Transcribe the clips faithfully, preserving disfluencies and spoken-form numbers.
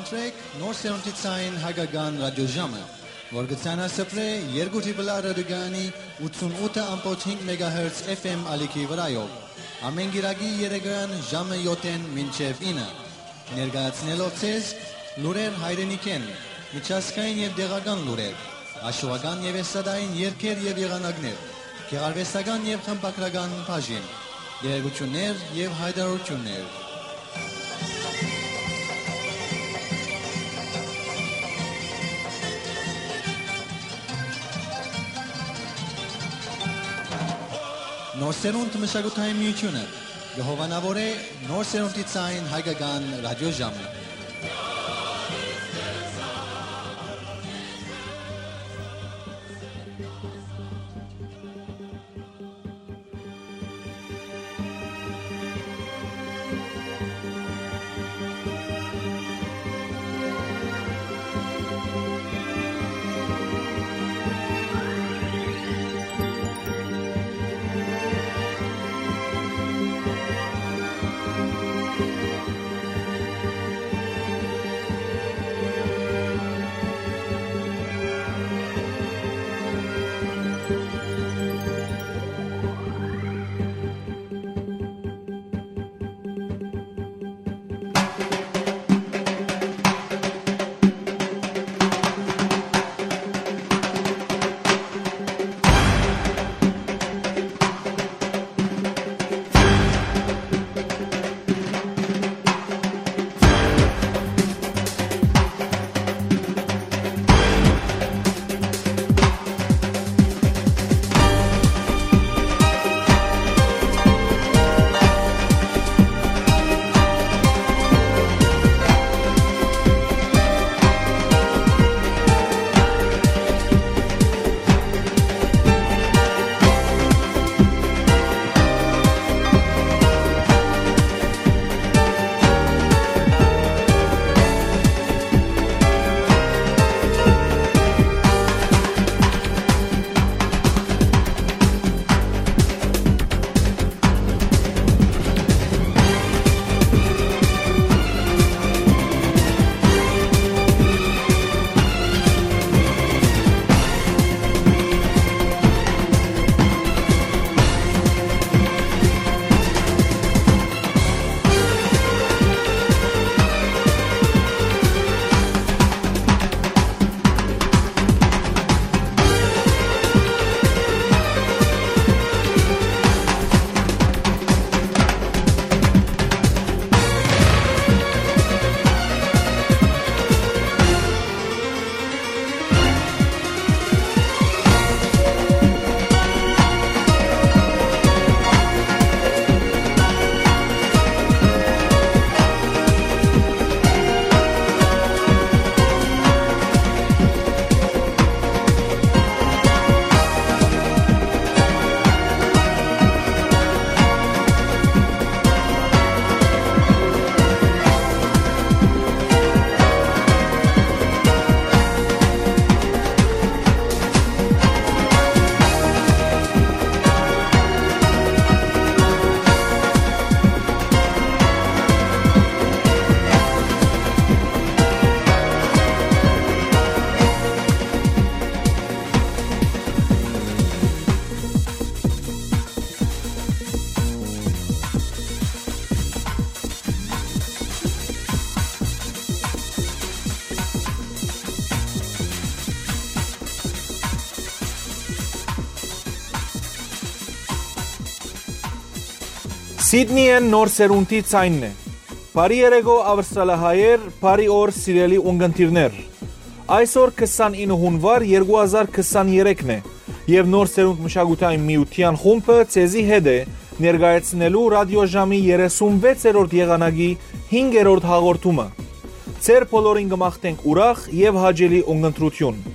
Սրեք Նոր Սերունդի Ցայն Հայկական Ռադիոժամը, որ կը ցանասփռէ երկու Տրիպլ Ա ռադիոկայանի ութսուն ութը ամբողջ հինգ մեգահերց F M ալիքի վրայով, ամէն կիրակի երեկոյան ժամը յոթ մինչեւ ինը, ներկայացնելով ձեզ լուրեր հայրենիքէն, միջազգային եւ տեղական լուրեր, աշուական եւ էստրադային երգեր եւ եղանակներ, գեղարուեստական եւ խմբագրական բաժին, տեղեկութիւններ եւ յայտարարութիւններ։ Նոր Սերունդ մշակութային միութիւնը կը հովանաւորէ Նոր Սերունդի Ցայն Հայկական Ռադիոժամը։ Սիդնիէն Նոր Սերունդի Ցայնն է։ Բարի երեկո, Աւստրալահայեր, բարի օր, սիրելի ունկնդիրներ։ Այսօր քսանինը հունուար երկու հազար քսաներեքն է, եւ Նոր Սերունդ մշակութային միութեան խումբը ձեզի հետ է ներկայացնելու ռադիոժամի երեսունվեցերորդ եղանակի հինգերորդ հաղորդումը։ Ձեր բոլորին կը մաղթենք ուրախ եւ հաճելի ունկնդրութիւն։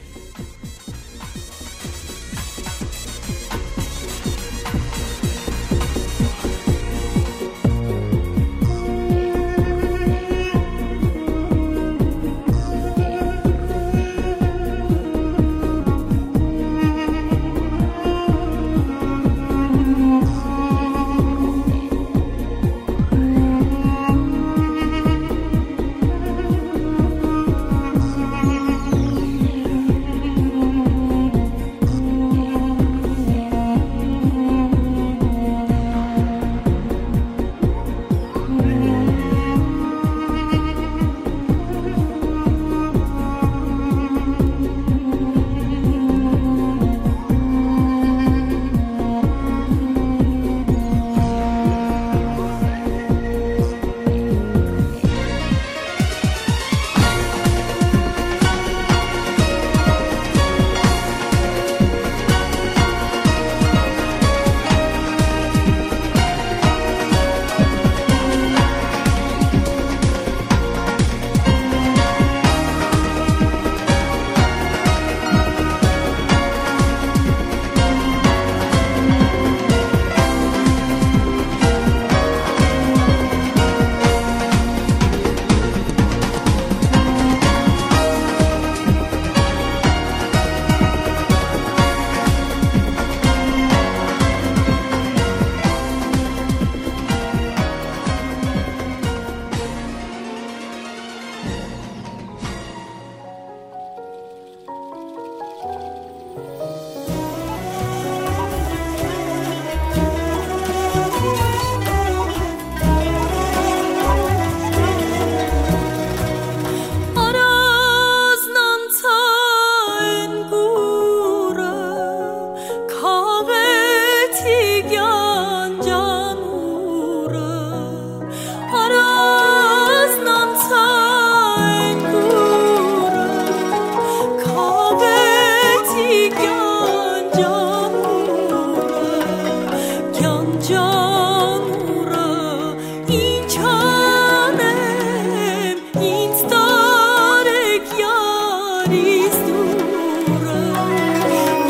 Առանձնանցա այն կուրը, քաղեցի կյանքան ուրը, առանձնանցա այն կուրը, քաղեցի կյանքան ուրը, կյանքան ուրը, ինչ անեմ, ինձ տարեք յարիս դուրը,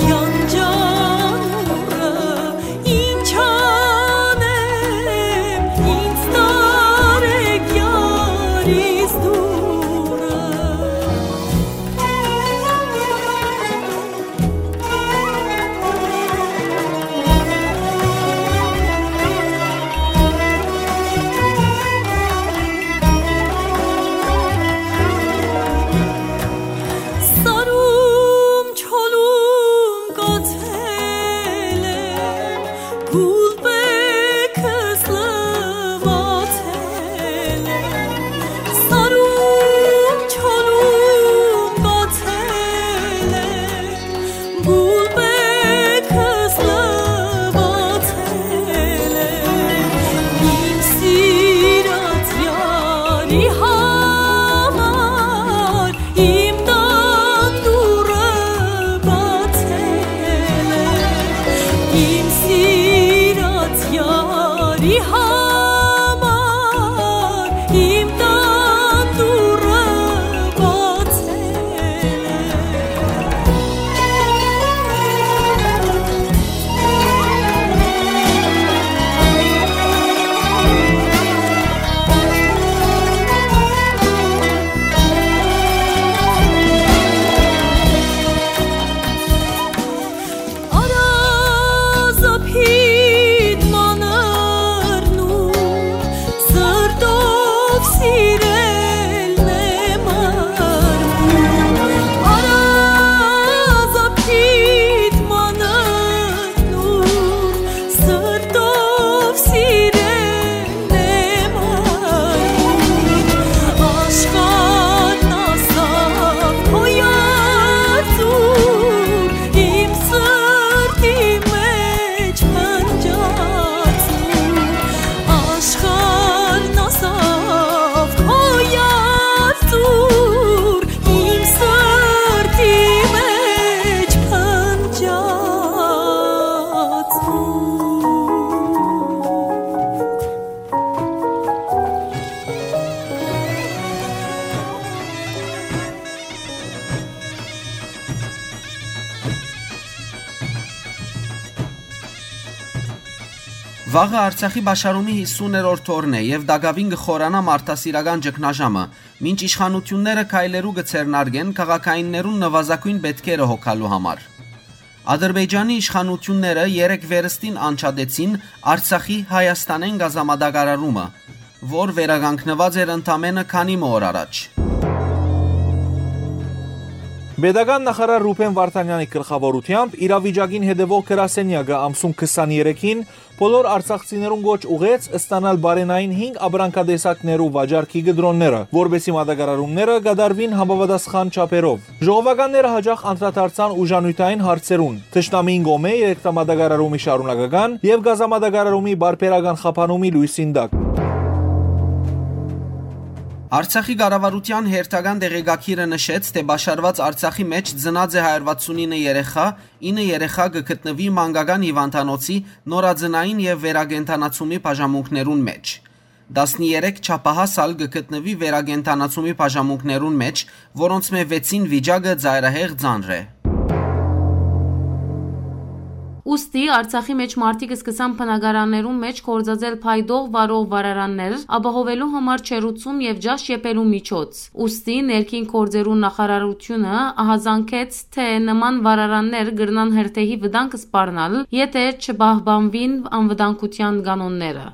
կյանքան ուրը, ինչ անեմ, ինձ տարեք յարիս դուրը։ Սարում, չորում կացել եմ, գուլպեքս լուացել եմ, սարում, չորում կացել եմ, գուլպեքս լուացել եմ, իմ սիրած յարի համար իմ տան դուռը բացել է, իմ սիրած յարի համար իմ տան դուռը բացել է։ Առազապիտ մանրն ու սրտով սիրելն եմ արմուն, առազապիտ մանրն ու սրտով սիրելն եմ արմուն, աշխարհն ասաւ քո երդուն, իմ սրտի մեջ փնջացուն, աշխարհն ասաւ քո երդուն, իմ սրտի մեջ փնջացուն։ Վաղը Արցախի պաշարումի յիսուներորդ օրն է եւ տակաւին կը խորանայ մարդասիրական ճգնաժամը, մինչ իշխանութիւնները քայլերու կը ձեռնարկեն քաղաքայիններուն նուազագոյն պէտքերը հոգալու համար։ Ադրբեջանի իշխանութիւնները երեկ վերստին անջատեցին Արցախի Հայաստանէն գազամատակարարումը, որ վերականգնուած էր ընդամէնը քանի մը օր առաջ։ Պետական նախարար Ռուբեն Վարդանեանի գլխաւորութեամբ իրավիճակին հետեւող գրասենեակը ամսուն քսաներեքին բոլոր արցախցիներուն կոչ ուղղեց ստանալ պարենային հինգ ապրանքատեսակներու վաճառքի կտրոնները, որպէսզի մատակարարումները կատարուին համապատասխան չափերով։ Ժողովականները յաճախ անդրադարձան ուժանիւթային հարցերուն, թշնամիին կողմէ երեքտամատակարարումի շարունակական եւ գազամատակարարումի պարբերական խափանումի լոյսին տակ։ Արցախի կառավարութեան հերթական տեղեկագիրը նշեց, թէ պաշարուած Արցախի մէջ ծնած է հարիւր վաթսունինը երեխայ, ինը երեխայ կը գտնուի մանկական հիւանդանոցի նորածնային եւ վերակենդանացումի բաժանմունքներուն մէջ։ Տասներեք չափահաս ալ կը գտնուի վերակենդանացումի բաժանմունքներուն մէջ, որոնցմէ վեցին վիճակը ծայրահեղ ծանր է։ Ուստի Արցախի մէջ մարդիկ սկսան բնակարաններուն մէջ գործածել փայտող վարող վառարաններ, ապահովելու համար ջեռուցում եւ ճաշ եփելու միջոց։ Ուստի ներքին գործերու նախարարութիւնը ահազանգեց, թէ նման վառարաններ կրնան հրդեհի վտանգ սպառնալ, եթէ չպահպանուին անվտանգութեան կանոնները։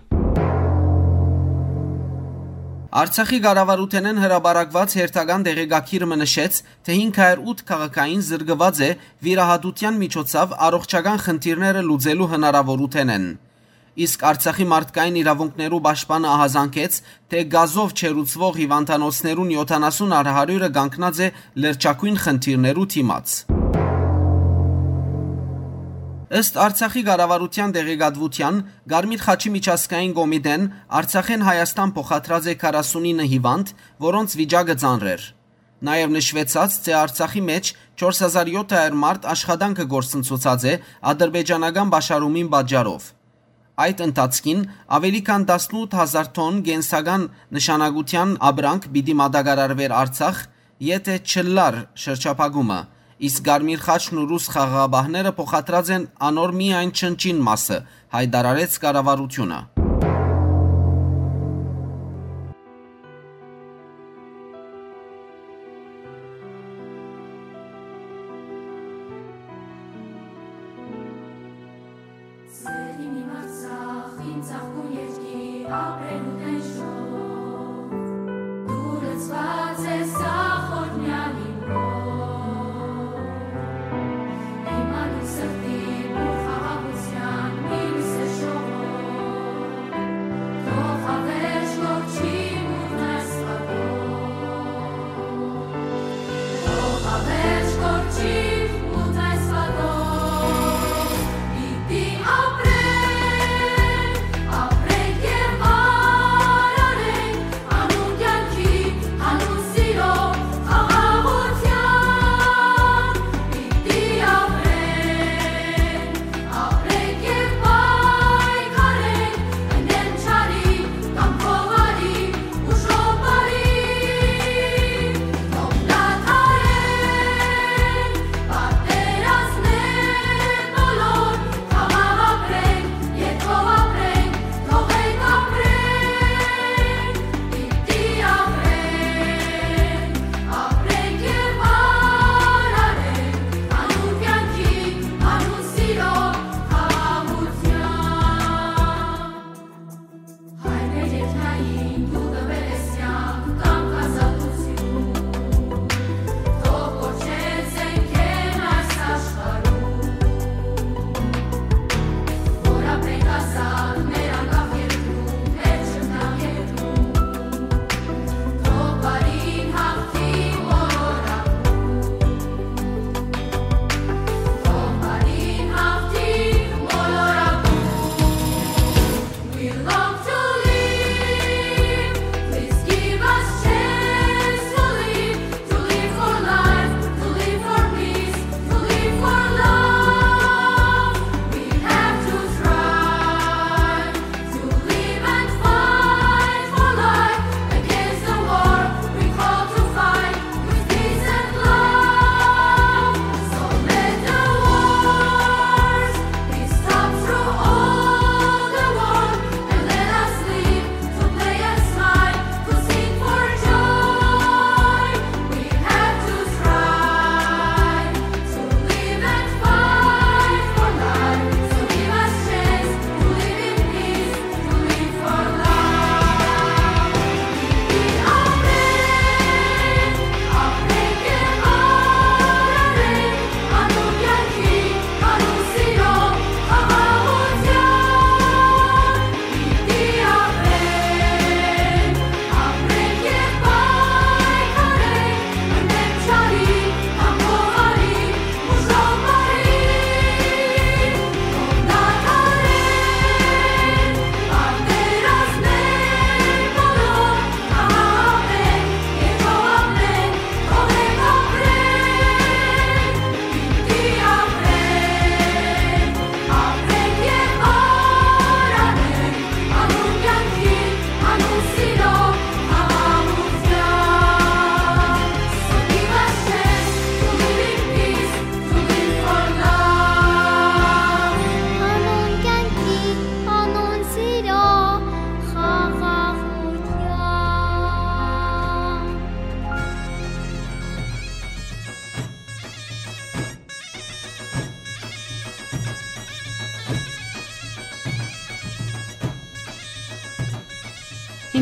Արցախի կառավարութենէն հրապարակուած հերթական տեղեկագիր մը նշեց, թէ հինգ հարիւր ութ քաղաքային զրկուած է վիրահատութեան միջոցաւ առողջական խնդիրները լուծելու հնարաւորութենէն։ Իսկ Արցախի մարդկային իրաւունքներու պաշտպանը ահազանգեց, թէ գազով չերուցուող հիւանդանոցներուն յոթանասուն առ հարիւրը կանգնած է լրջագոյն խնդիրներու դիմաց։ Ըստ Արցախի կառավարութեան տեղեկատուութեան, Կարմիր խաչի միջազգային կոմիտեն Արցախէն Հայաստան փոխադրած է քառասունինը հիւանդ, որոնց վիճակը ծանր էր։ Նաեւ նշուեցաց, թէ Արցախի մէջ չորս հազար յոթ հարիւր մարդ աշխատանքը կորսնցուցած է ադրբեջանական պաշարումին պատճառով։ Այդ ընթացքին աւելի քան տասնութ հազար թոն կենսական նշանակութեան ապրանք պիտի մատակարարուէր Արցախ, եթէ չըլլար շրջափակումը, իսկ Կարմիր խաչն ու ռուս խաղաղապահները փոխադրած են անոր միայն չնչին մասը, յայտարարեց կառավարութիւնը։ Սեր իմ, իմ Արցախ, իմ ծաղկուն երկիր, ապրելու տենչով, դու լցուած ես ախորնյալ իմ հոր։ Իմ անուն սրտի ու խաղաղութեան մինսը շողով, թող հավերժ կորչի մութն այս պատով։ Թող հավերժ կորչի մութն այս պատով, պիտի ապրենք, ապրենք եւ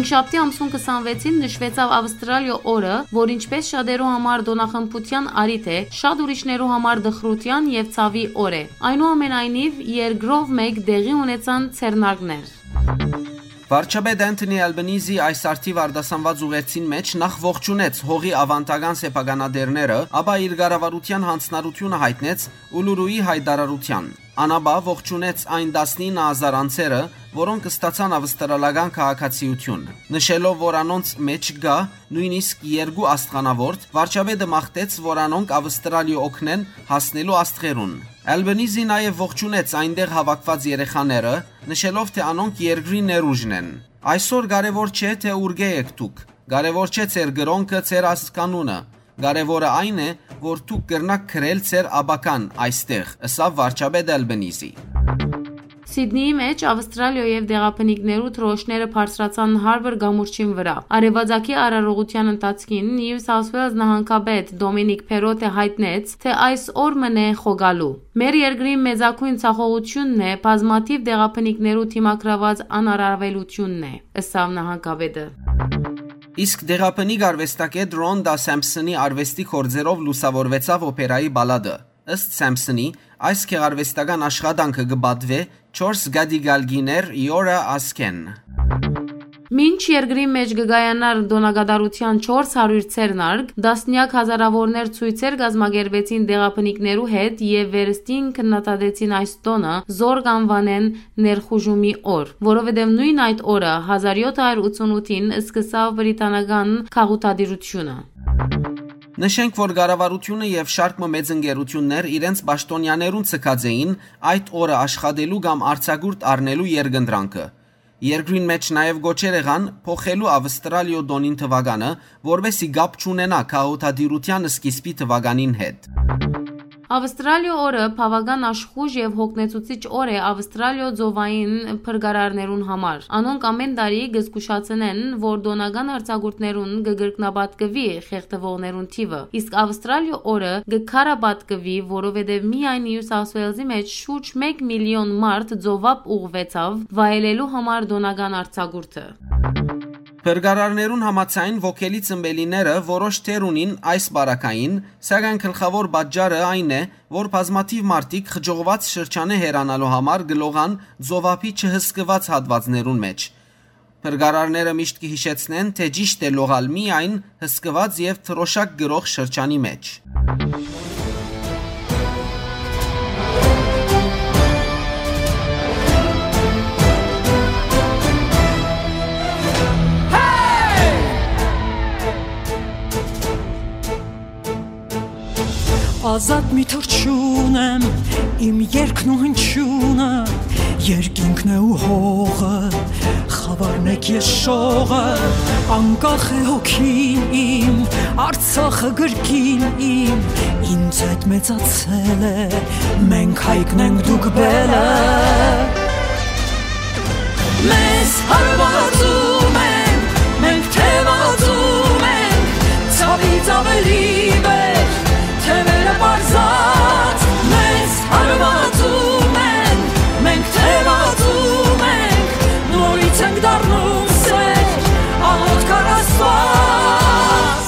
Շաբթի ամսուն քսանվեցին նշուեցաւ Ավստրալիոյ օրը, որ ինչպէս շատերու համար տօնախմբութեան առիթ է, շատ ուրիշներու համար տխրութեան եւ ցաւի օր է։ Այնուամենայնիւ, երկրով մէկ տեղի ունեցան ձեռնարկներ։ Վարչապետ Անթոնի Ալբանիզի այս առթիւ արտասանուած ուղերձին մէջ նախ ողջունեց հողի աւանդական սեփականատերերը, ապա իր կառավարութեան յանձնառութիւնը յայտնեց Ուլուրուի յայտարարութեան։ Ան ապա ողջունեց այն տասնինը հազար անձերը, որոնք ստացան ավստրալական քաղաքացիութիւն։ Նշելով, որ անոնց մէջ կայ նոյնիսկ երկու աստղանաւորդ, վարչապետը մաղթեց, որ անոնք Ավստրալիա օգնեն հասնելու աստղերուն։ Ալբանիզի նաեւ ողջունեց այնտեղ հաւաքուած երեխաները, նշելով, թէ անոնք երկրի ներուժն են։ «Այսօր կարեւոր չէ, թէ ուրկէ եք դուք, կարեւոր չէ ձեր կրօնքը, ձեր ազգանունը, կարեւորը այն է, որ դուք կրնաք գրել ձեր ապագան այստեղ», ըսաւ վարչապետ Ալբանիզի։ Սիդնիի մէջ Ավստրալիոյ եւ դեղաբնիկներու դրոշները բարձրացան Հարբոր կամուրջին վրայ։ Արեւածագի արարողութեան ընթացքին Նիու Սաութ Ուէյլզ նահանգապետ Դոմինիկ Փերոթէ յայտնեց, թէ այս օր մըն է խոկալու։ Մեր երկրին մեծագոյն ցախողութիւնն է, բազմաթիւ դեղաբնիկներու դիմագրաւած անարարուելութիւնն է, ըսաւ նահանգապետը։ Իսկ դեղաբնիկ արուեստագէտ Ռոնտա Սեմփսոնի արուեստի գործերով լուսաւորուեցաւ օփերայի պալատը։ Ըստ Սեմփսոնի, այս գեղարուեստական աշխատանքը կը պատուէ չորս կատիկալկիներ Իորա Ասքեն։ Մինչ երկրի մէջ կը կայանար տօնակատարութեան չորս հարիւր ձեռնարկ, տասնեակ հազարաւորներ ցոյցեր կազմակերպեցին դեղաբնիկներու հետ եւ վերստին քննադատեցին այս տօնը, զոր կ'անուանեն ներխուժումի օր, որովհետեւ նոյն այդ օրը, հազար յոթ հարիւր ութսունութին, սկսաւ բրիտանական գաղութատիրութիւնը։ Նշենք, որ կառավարութիւնը եւ շարք մը մեծ ընկերութիւններ իրենց պաշտօնեաներուն ձգած էին այդ օրը աշխատելու կամ արձակուրդ առնելու երկընտրանքը։ Երկրին մէջ նաեւ կոչեր եղան փոխելու Ավստրալիոյ տօնին թուականը, որպէս զի կապ չունենայ գաղութատիրութեան սկիզբի թուականին հետ։ Ավստրալիոյ օրը բաւական աշխոյժ եւ յոգնեցուցիչ օր է Ավստրալիոյ ծովային փրկարարներուն համար։ Անոնք ամէն տարի կը զգուշացնեն, որ տօնական արձակուրդներուն կը կրկնապատկուի խեղդուողներուն թիւը, իսկ Ավստրալիոյ օրը կը քարապատկուի, որովհետեւ միայն Նիու Սաութ Ուէյլզի մէջ շուրջ մէկ միլիոն մարդ ծովափ ուղղուեցաւ վայելելու համար տօնական արձակուրդը։ Փրկարարներուն համաձայն, ոգելի ծնպելիները որոշ դեր ունին այս պարագային, սակայն գլխաւոր պատճառը այն է, որ բազմաթիւ մարդիկ խճողուած շրջանը հեռանալու համար կը լողան ծովափի չհսկուած հատուածներուն մէջ։ Փրկարարները միշտ կը յիշեցնեն, թէ ճիշդ է լողալ միայն հսկուած եւ դրօշակ կրող շրջանի մէջ։ Ազատ մի թռչուն եմ, իմ երգն ու հնչյունը, երկինքն է ու հողը, խաւարն եք ես շողը, անկախ է հոգին իմ, Արցախը գրկին իմ, ինձ հետ մեծացել է, մենք հայկն ենք, դուք բելը։ Մեզ հարվածում են, մենք թևածում ենք, ցավից ավելի վեր, թևերը պարզած, մեզ հարվածում են, մենք թևածում ենք, նորից ենք դառնում սեր, աղոթք առ Աստված։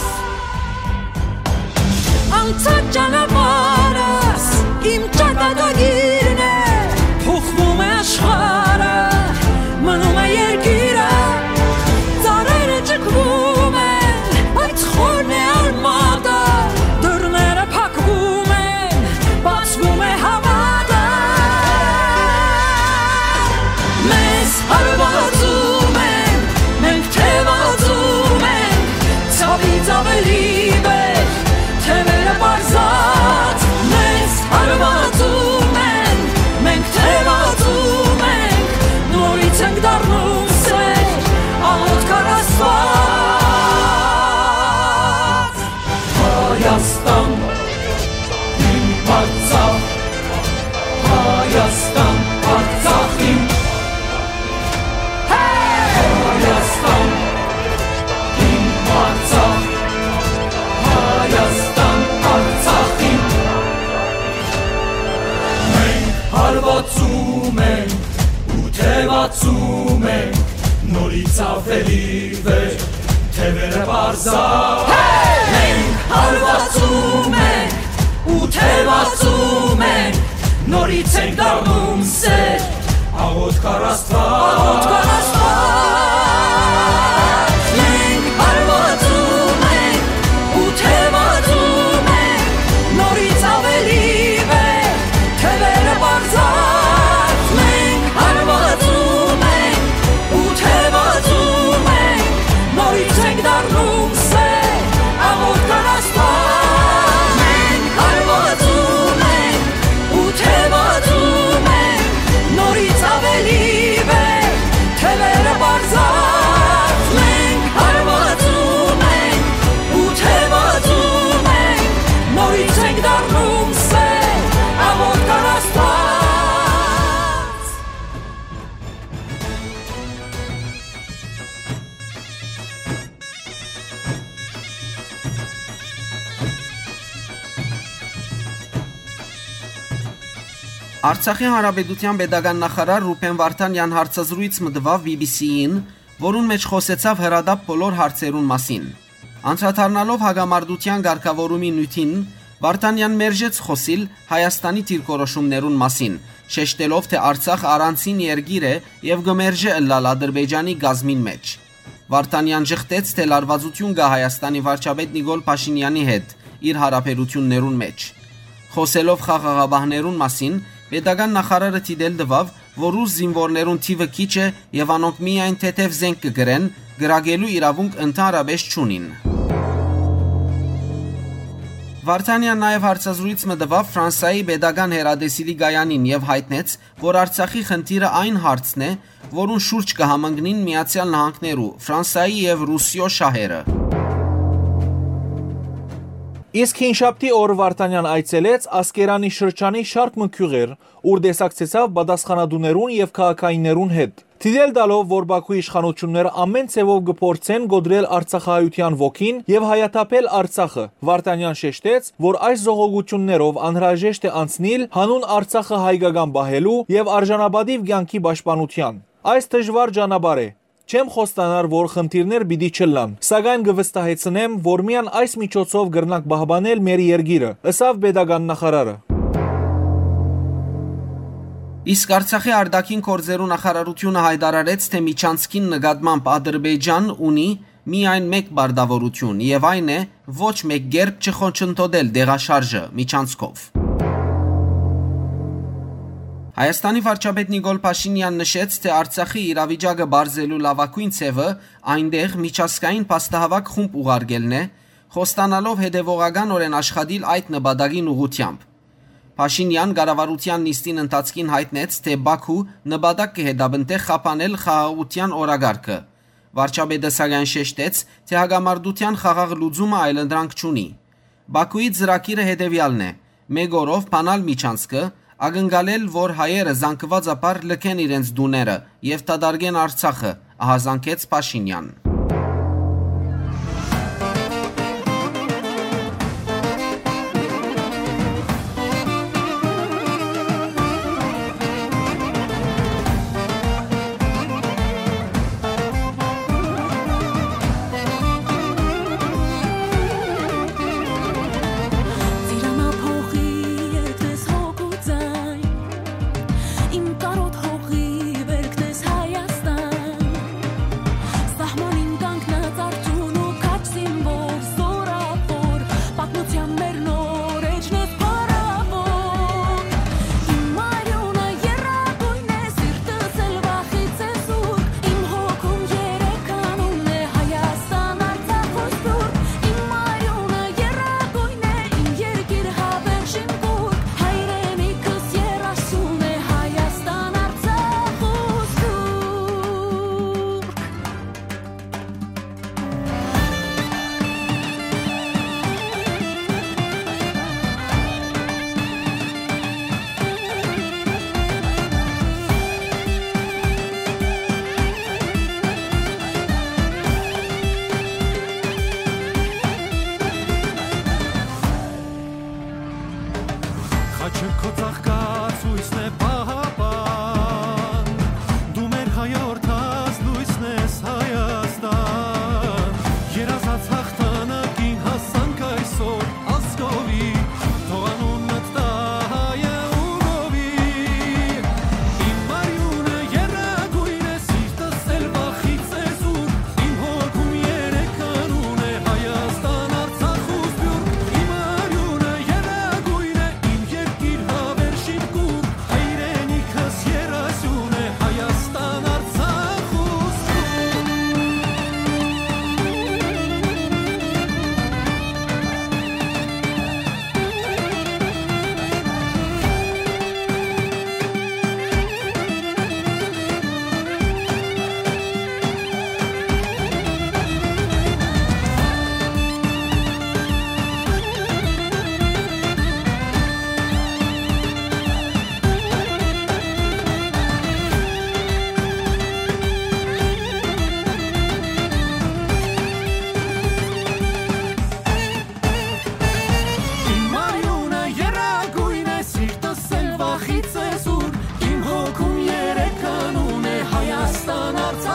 Անցած ճանապարհս իմ ճակատագիրն է, փոխվում է աշխարհը, մնում է երկիրը, ծառերը ճկվում են, բայց խորն է արմատը, դռները փակվում են, բացվում է հավատը։ Մեզ հարվածում են, մենք թևածում ենք, ցավից ավելի վեր, թևերը պարզած, մեզ հարվածում են, մենք թևածում ենք, նորից ենք դառնում սեր, աղոթք առ Աստված։ Հայաստան, իմ Արցախ, Հայաստան, Արցախ իմ, Հայաստան, իմ Արցախ, Հայաստան, Արցախ իմ։ Մենք հարվածում ենք ու թևածում ենք, Նորից աւելի վեր, թեւերը պարզա։ Մենք հարվածում ենք ու թեւածում ենք, նորից ենք դառնում սեր, աղոթք առ Աստուած։ Աղոթք առ Աստուած։ Մենք հարվածում ենք ու թեւածում ենք, նորից աւելի վեր, թեւերը պարզած, մենք հարվածում ենք ու թեւածում ենք, նորից ենք դառնում սեր, աղոթք առ Աստուած։ Մենք հարվածում ենք ու թեւածում ենք, նորից աւելի վեր, թեւերը պարզած, մենք հարվածում ենք ու թեւածում ենք, նորից ենք դառնում սեր, աղոթք առ Աստուած։ Արցախի Հանրապետութեան պետական նախարար Ռուբեն Վարդանեան հարցազրոյց մը տուաւ B B C-ին, որուն մէջ խօսեցաւ հրատապ բոլոր հարցերուն մասին։ Անդրադառնալով հակամարտութեան կարգաւորումի նիւթին, Վարդանեան մերժեց խօսիլ Հայաստանի դիրքորոշումներուն մասին, շեշտելով, թէ Արցախ առանձին երկիր է եւ կը մերժէ ըլլալ Ադրբեջանի կազմին մէջ։ Վարդանեան ժխտեց, թէ լարուածութիւն կայ Հայաստանի վարչապետ Նիկոլ Փաշինեանի հետ իր յարաբերութիւններուն մէջ։ Խօսելով խաղաղապահներուն մասին, պետական նախարարը դիտել տուաւ, որ ռուս զինուորներուն թիւը քիչ է եւ անոնք միայն թեթեւ զէնք կը կրեն, կրակելու իրաւունք ընդհանրապէս չունին։ Վարդանեան նաեւ հարցազրոյց մը տուաւ Ֆրանսայի պետական հեռատեսիլի կայանին եւ յայտնեց, որ Արցախի խնդիրը այն հարցն է, որուն շուրջ կը համընկնին Միացեալ Նահանգներու, Ֆրանսայի եւ Ռուսիոյ շահերը։ Իսկ հինշաբթի օր Վարդանեան այցելեց Ասկերանի շրջանի շարք մը գիւղեր, ուր տեսակցեցաւ պատասխանատուներուն եւ քաղաքայիններուն հետ։ Դիտել տալով, որ Բաքու իշխանութիւնները ամէն ձեւով կը փորձեն կոտրել արցախահայութեան ոգին եւ հայաթափել Արցախը, Վարդանեան շեշտեց, որ այս զողողութիւններով անհրաժեշտ է անցնիլ հանուն Արցախը հայկական պահելու եւ արժանապատիւ կեանքի պաշտպանութեան։ Այս դժուար ճանապարհ է։ Չեմ խոստանար, որ խնդիրներ պիտի չըլլան, սակայն կը վստահեցնեմ, որ միայն այս միջոցով կրնանք պահպանել մեր երկիրը, ըսաւ պետական նախարարը։ Իսկ Արցախի արտաքին գործերու նախարարութիւնը յայտարարեց, թէ միջանցքին նկատմամբ Ադրբեջան ունի միայն մէկ պարտաւորութիւն, եւ այն է ոչ մէկ կերպ չխոչընդոտել տեղաշարժը միջանցքով։ Հայաստանի վարչապետ Նիկոլ Փաշինեան նշեց, թէ Արցախի իրավիճակը պարզելու լաւագոյն ձեւը այնտեղ միջազգային փաստահաւաք խումբ ուղարկելն է, խոստանալով հետեւողականօրէն աշխատիլ այդ նպատակին ուղղութեամբ։ Փաշինեան կառավարութեան նիստին ընթացքին յայտնեց, թէ Բաքու նպատակ կը հետապնդէ խափանել խաղաղութեան օրակարգը։ Վարչապետը սակայն շեշտեց, թէ հակամարտութեան խաղաղ լուծումը այլընտրանք չունի։ Բաքուի ծրագիրը հետեւեալն է. մէկ օրով բանալ միջանցքը, ակնկալել, որ հայերը զանգուածաբար լքեն իրենց տուները եւ դատարկեն Արցախը, ահազանգեց Փաշինեան։ Ծիրանափոխի երգն ես հոգու ձայն, իմ կարոտ հողի բերքն ես Հայաստան։ Սահմանին կանգնած արդիւն ու քաջ զինվոր, զորավոր, պատմութեան մեր նոր էջն ես փառաւոր։ Իմ արիւնը եռագոյն է, սիրտս էլ վախից է սուրբ, իմ հոգում երեք անուն է Հայաստան, Արցախ ու Սուրբ։ Իմ արիւնը եռագոյն է, իմ երկիր հավերժին կուռք, հայրենիքս եռասուն է Հայաստան, Արցախ ու Սուրբ։ Խաչը քո ծաղկած լույսն է, պահապան, դու մեր հայրենիքին լույսն ես։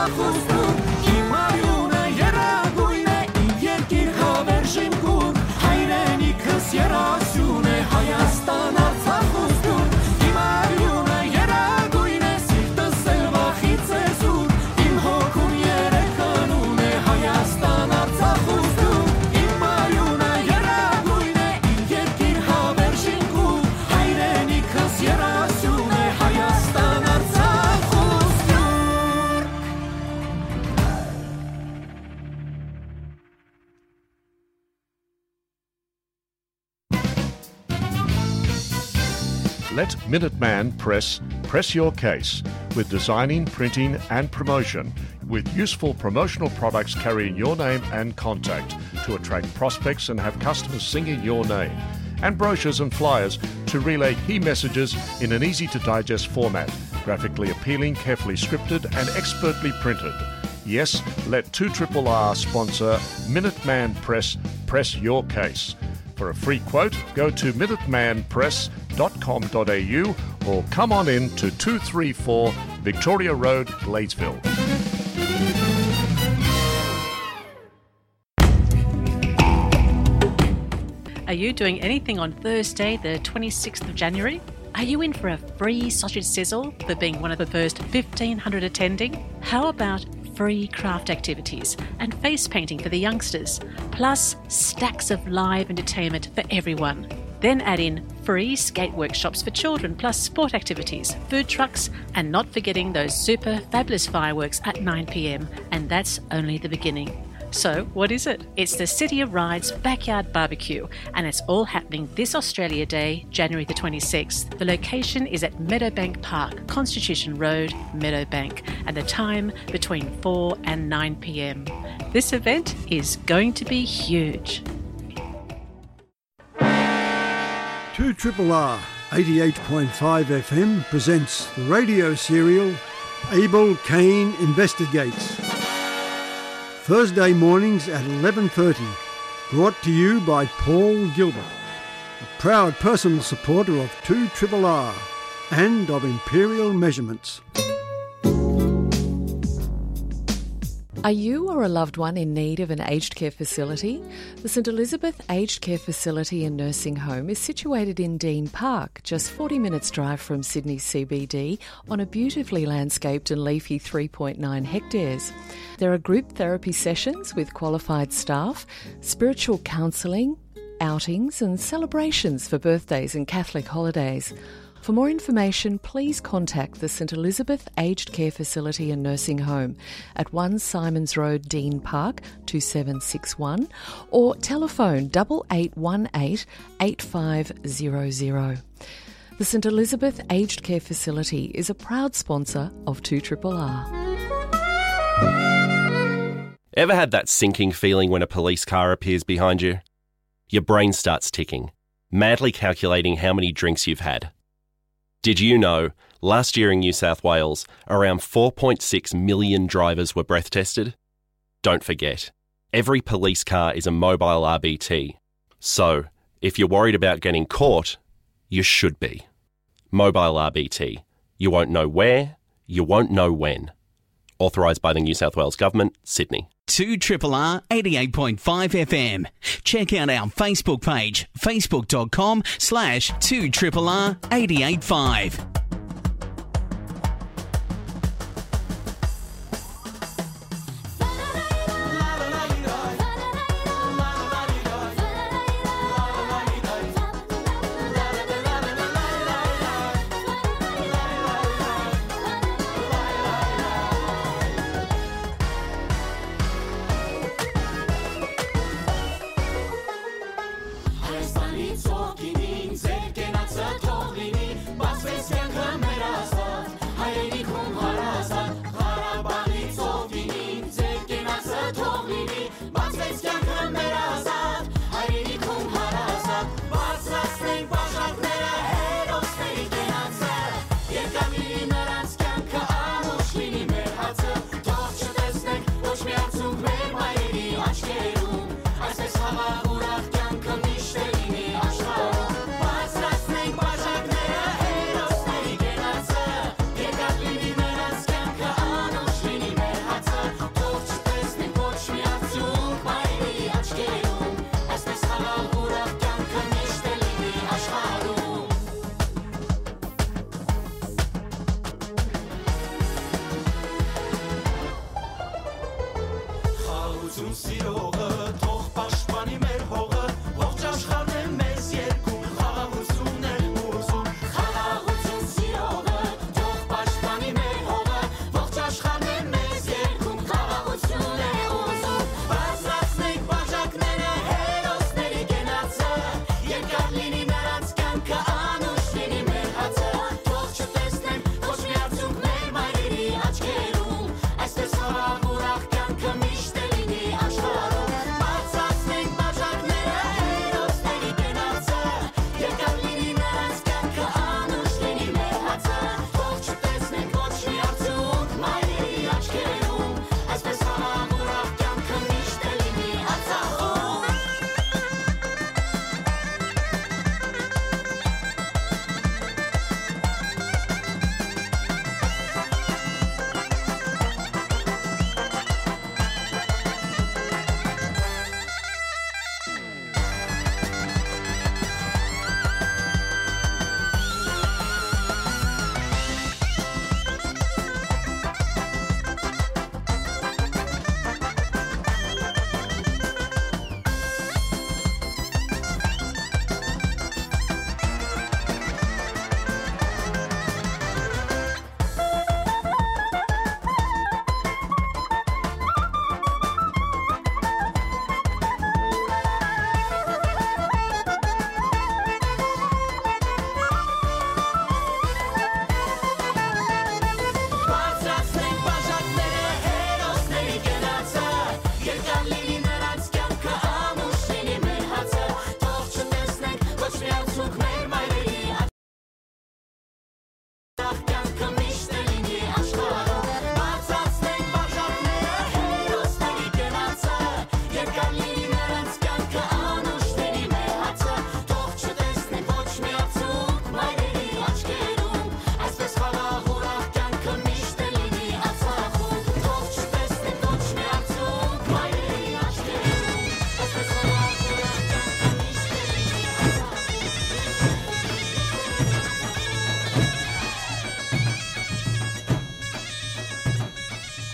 Իմ արիունը երագույն է, իմ երկիր հավերժ իմ գուր, հայրենիքս երազյուն է, Հայաստան, Արցախ ու Սփիւռ։ Իմ արիունը երագույն է, սիրտս էլ վախից է զուր, իմ հոգուն երեխան ունէ, Հայաստան, Արցախ ու Սփիւռ։ Իմ արիունը երագույն է, իմ երկիր հավերժ իմ գուր, հայրենիքս երազյուն է, Հայաստան, Արցախ ու Սփիւռ։ Let Minuteman Press press your case with designing, printing, and promotion, with useful promotional products carrying your name and contact to attract prospects and have customers singing your name, and brochures and flyers to relay key messages in an easy to digest format, graphically appealing, carefully scripted, and expertly printed. Yes, let two triple R sponsor Minuteman Press press your case. For a free quote, go to minuteman press dot com dot A U or come on in to two three four Victoria Road, Gladesville. Are you doing anything on Thursday, the twenty-sixth of January? Are you in for a free sausage sizzle for being one of the first fifteen hundred attending? How about free craft activities and face painting for the youngsters, plus stacks of live entertainment for everyone? Then add in free skate workshops for children, plus sport activities, food trucks, and not forgetting those super fabulous fireworks at nine p.m. And that's only the beginning. So, what is it? It's the City of Rides Backyard Barbecue, and it's all happening this Australia Day, January the twenty-sixth. The location is at Meadowbank Park, Constitution Road, Meadowbank, and the time between four and nine p.m. This event is going to be huge. Two triple R, eighty-eight point five F M presents the radio serial Abel Cain Investigates. Thursday mornings at eleven thirty, brought to you by Paul Gilbert, a proud personal supporter of two triple R and of Imperial Measurements. Are you or a loved one in need of an aged care facility? The St Elizabeth Aged Care Facility and Nursing Home is situated in Dean Park, just forty minutes drive from Sydney C B D, on a beautifully landscaped and leafy three point nine hectares. There are group therapy sessions with qualified staff, spiritual counselling, outings and celebrations for birthdays and Catholic holidays. For more information, please contact the St Elizabeth Aged Care Facility and Nursing Home at one Simons Road, Dean Park, two seven six one, or telephone double eight one eight eight five zero zero. The St Elizabeth Aged Care Facility is a proud sponsor of two triple R. Ever had that sinking feeling when a police car appears behind you? Your brain starts ticking, madly calculating how many drinks you've had. Did you know, last year in New South Wales, around four point six million drivers were breath tested? Don't forget, every police car is a mobile R B T. So, if you're worried about getting caught, you should be. Mobile R B T. You won't know where, you won't know when. Authorised by the New South Wales Government, Sydney. Two triple R eighty-eight point five F M. Check out our Facebook page, facebook dot com slash two triple R eight eight five. Հայաստանի ծովքին ձեր կենացը թող լինի, բացվեց կյանք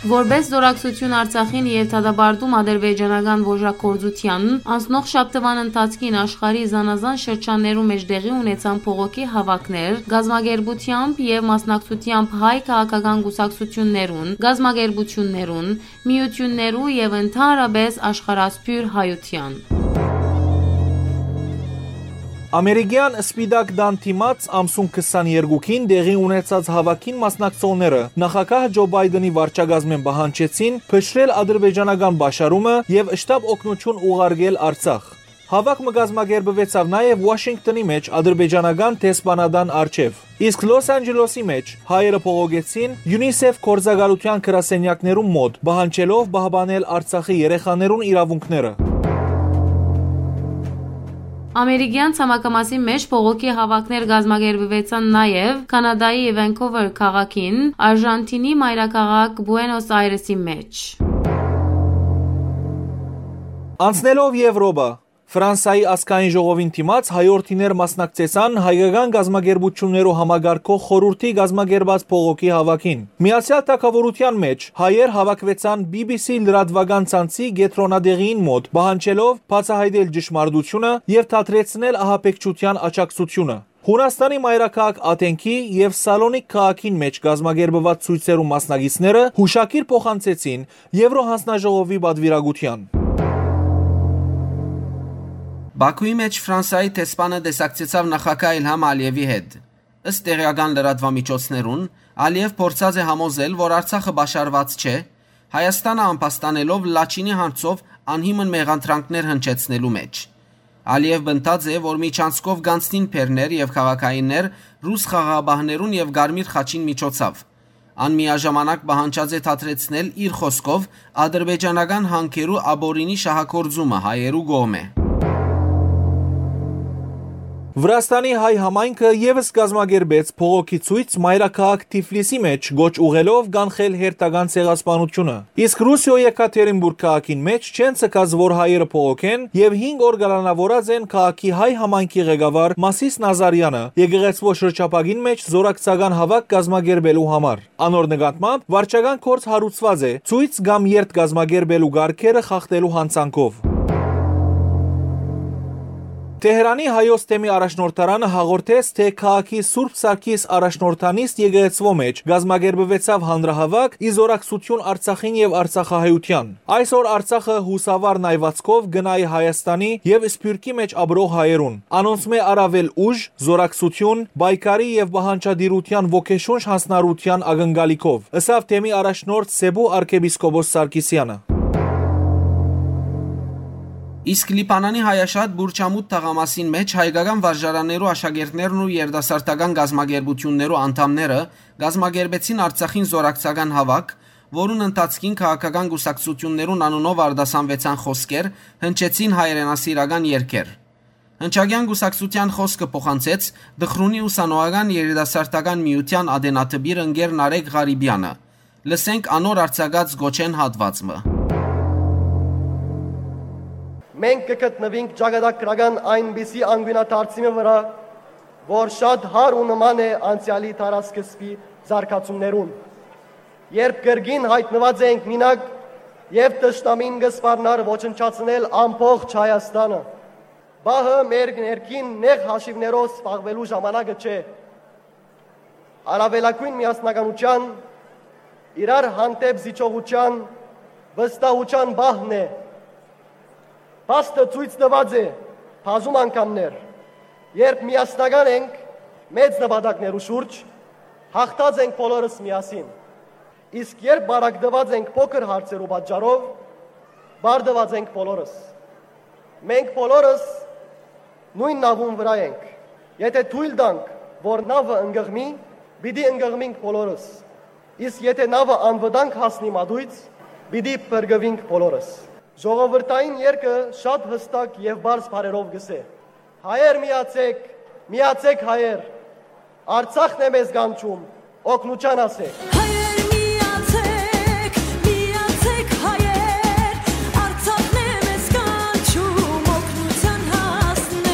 Որպէս զօրակցութիւն Արցախին եւ դատապարտում ադրբեջանական ոժակգործութեան, անցնող շաբթուան ընթացքին աշխարհի զանազան շրջաններու մէջ տեղի ունեցան փողոքի հաւաքներ, կազմակերպութեամբ եւ մասնակցութեամբ հայ քաղաքական կուսակցութիւններուն, կազմակերպութիւններուն, միութիւններու եւ ընդհանրապէս աշխարհասփիւռ հայութեան։ Ամերիկեան Սպիտակ տան դիմաց ամսուն քսաներկուքին տեղի ունեցած հաւաքին մասնակցողները նախագահ Ջո Պայդենի վարչակազմէն պահանջեցին փշրել ադրբեջանական պաշարումը եւ շտապ օգնութիւն ուղարկել Արցախ։ Հաւաք մը կազմակերպուեցաւ նաեւ Ուաշինկտոնի մէջ ադրբեջանական դեսպանատան առջեւ։ Իսկ Լոս Անջելոսի մէջ հայերը բողոքեցին UNICEF գործակալութեան գրասենեակներուն մօտ, պահանջելով պահպանել Արցախի երեխաներուն իրաւունքները։ Ամերիկեան ցամաքամասին մէջ բողոքի հաւաքներ կազմակերպուեցան նաեւ Քանադայի Վենքուվեր քաղաքին, Արժանթինի մայրաքաղաք Պուենոս Այրեսի մէջ։ Անցնելով Եվրոպա, Ֆրանսայի ազգային ժողովին դիմաց հայորդիներ մասնակցեցան հայկական կազմակերպութիւններու համակարգող խորհուրդի կազմակերպած բողոքի հաւաքին։ Միացեալ Թագաւորութեան մէջ հայեր հաւաքուեցան B B C լրատուական ցանցի կեդրոնատեղիին մօտ, պահանջելով բացայայտել ճշմարտութիւնը եւ դադրեցնել ահաբեկչութեան աջակցութիւնը։ Յունաստանի մայրաքաղաք Աթենքի եւ Սալոնիկ քաղաքին մէջ կազմակերպուած ցոյցերու մասնակիցները յուշագիր փոխանցեցին Եվրոհանձնաժողովի պատուիրակութեան։ Բաքուի մէջ Ֆրանսայի դեսպանը տեսակցեցաւ նախագահ Իլհամ Ալիևի հետ։ Ըստ տեղական լրատուամիջոցներուն, Ալիև փորձած է համոզել, որ Արցախը պաշարուած չէ, Հայաստանը ամբաստանելով Լաչինի հարցով անհիմն մեղադրանքներ հնչեցնելու մէջ։ Ալիև պնդած է, որ միջանցքով կանցնին բեռներ եւ քաղաքայիններ ռուս խաղաղապահներուն եւ Կարմիր խաչին միջոցով։ Ան միաժամանակ պահանջած է դադրեցնել իր խօսքով ադրբեջանական հանքերու ապօրինի շահագործումը հայերու կողմէ։ Վրաստանի հայ համայնքը եւս կազմակերպեց բողոքի ցոյց մայրաքաղաք Թիֆլիսի մէջ, կոչ ուղղելով կանխել հերթական ցեղասպանությունը։ Իսկ Ռուսիոյ Եկատերինբուրգ քաղաքին մէջ չեն ձգած, որ հայերը բողոքեն, եւ հինգ օր կալանաւորած են քաղաքի հայ համայնքի ղեկավար Մասիս Նազարեանը եկեղեցւոյ շրջափակին մէջ զօրակցական հաւաք կազմակերպելու համար։ Անոր նկատմամբ վարչական գործ հարուցուած է, ցոյց կամ երթ կազմակերպելու կարգերը խախտելու յանցանքով։ Թեհրանի հայոց թեմի առաջնորդարանը հաղորդեց, թէ քաղաքի Սուրբ Սարգիս առաջնորդանիստ եկեղեցւոյ մէջ կազմակերպուեցաւ հանրահաւաք ի զօրակցութիւն Արցախին եւ արցախահայութեան։ Այսօր Արցախը յուսավար նայուածքով կը նայի Հայաստանի եւ Սփիւռքի մէջ ապրող հայերուն։ Անոնցմէ առաւել ուժ, զօրակցութիւն, պայքարի եւ պահանջատիրութեան ոգեշունչ յանձնառութեան ակնկալիքով, ըսաւ թեմի առաջնորդ Սեբու արքեպիսկոպոս Սարգիսեանը։ Իսկ Լիբանանի հայաշատ Բուրչամուտ թաղամասին մէջ հայկական վարժարաններու աշակերտներն ու երիտասարդական կազմակերպութիւններու անդամները կազմակերպեցին Արցախին զօրակցական հաւաք, որուն ընթացքին քաղաքական կուսակցութիւններուն անունով արտասանուեցան խօսքեր, հնչեցին հայրենասիրական երգեր։ Հնչակեան կուսակցութեան խօսքը փոխանցեց Դխրունի ուսանողական երիտասարդական միութեան ատենադպիր ընկեր Նարեկ Ղարիբեանը։ Լսենք անոր արձակած գոչէն հատուած մը։ Մենք կը գտնուինք ճակատագրական այնպիսի անկիւնադարձի մը վրայ, որ շատ հարու նման է անցեալի դարասկզբի զարգացումներուն, երբ կրկին յայտնուած ենք մինակ եւ թշնամին կը սպառնար ոչնչացնել ամբողջ Հայաստանը։ Պահը մեր ներքին նեղ հաշիւներով զբաղուելու ժամանակը չէ։ Առաւելագոյն միասնականութեան, իրար հանդէպ զիջողութեան, վստահութեան պահն է։ Փաստը ցոյց տուած է բազում անգամներ, երբ միասնական ենք մեծ նպատակներու շուրջ, յաղթած ենք բոլորս միասին։ Իսկ երբ պարակտուած ենք փոքր հարցերու պատճառով, պարտուած ենք բոլորս։ Մենք բոլորս նոյն նաւուն վրայ ենք։ Եթէ թոյլ տանք, որ նաւը ընկղմի, պիտի ընկղմինք բոլորս։ Իսկ եթէ նաւը անվտանգ հասնի մատոյց, պիտի փրկուինք բոլորս։ Ժողովրդային երգը շատ յստակ եւ պարզ բառերով կ'ըսէ. «Հայեր միացեք, միացեք հայեր, Արցախն է մեզ կանչում, օգնութեան ասեք»։ Հայեր միացեք, միացեք հայեր, Արցախն է մեզ կանչում, օգնութեան հասնեք։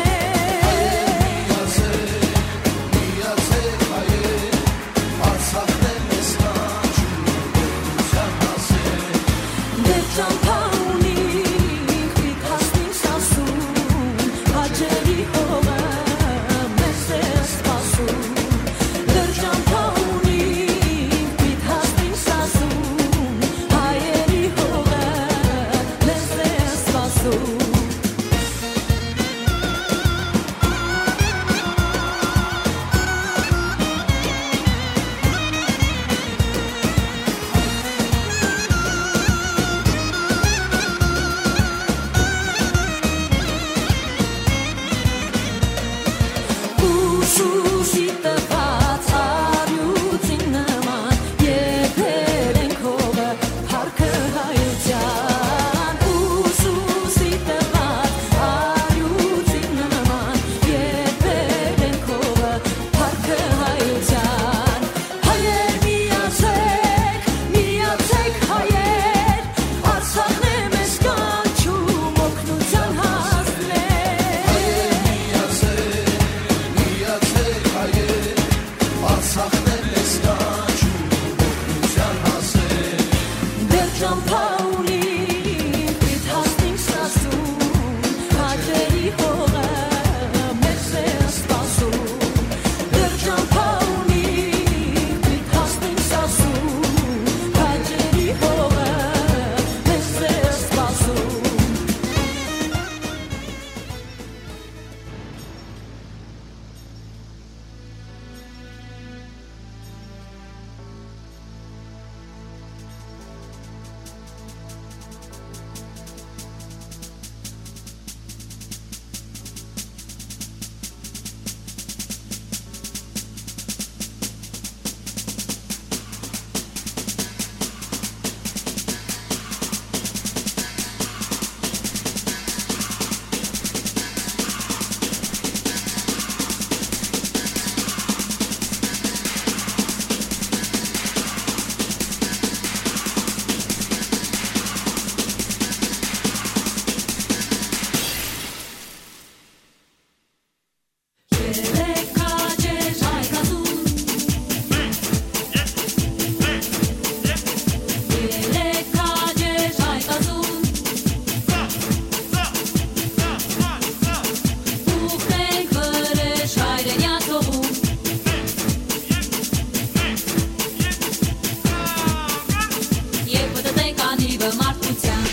Մարդկության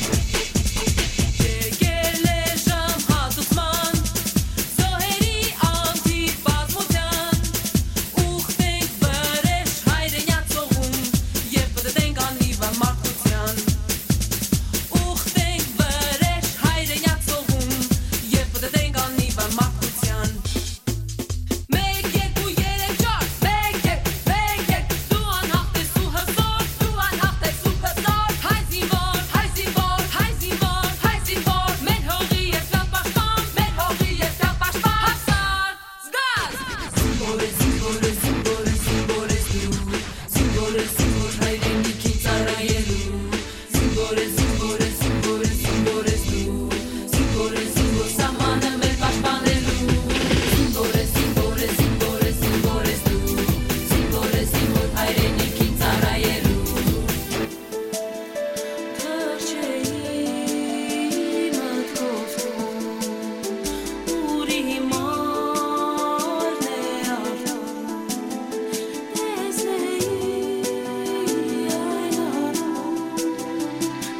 եկել է ժամ հատուցման, զոհերի անթիվ բազմության, ուխտենք վրեժ հայրենյաց օղում, եւ պտտենք անիվը մարդկության։ Ուխտենք վրեժ հայրենյաց օղում, եւ պտտենք անիվը մարդկության։ Մեկ, երկու, երեք, չար, մեկ, երեք, մեկ, երեք, դու անհաղթ ես ու հզոր, դու անհաղթ ես ու հզոր, հայ զինվոր, հայ զինվոր, հայ զինվոր, հայ զինվոր, մեր հողի երկրապաշտպան, մեր հողի երկրապաշտպան, Հաֆսար, զգազ։ Զինվոր է, զինվոր է, զինվոր է, զինվոր ես դու, զինվոր է, զինվոր հայրենիքին ծառայելու։ Զինվոր է, զինվոր է, զինվոր է, զինվոր ես դու, զինվոր է, զինվոր սահմանը մեր պաշտպանելու։ Զինվոր է, զինվոր է, զինվոր է, զինվոր ես դու, զինվոր է, զինվոր հայրենիքին ծառայելու։ Թռչէի մտքով քո, ուր իմ արն է արդար, տեսնեի այն առուն,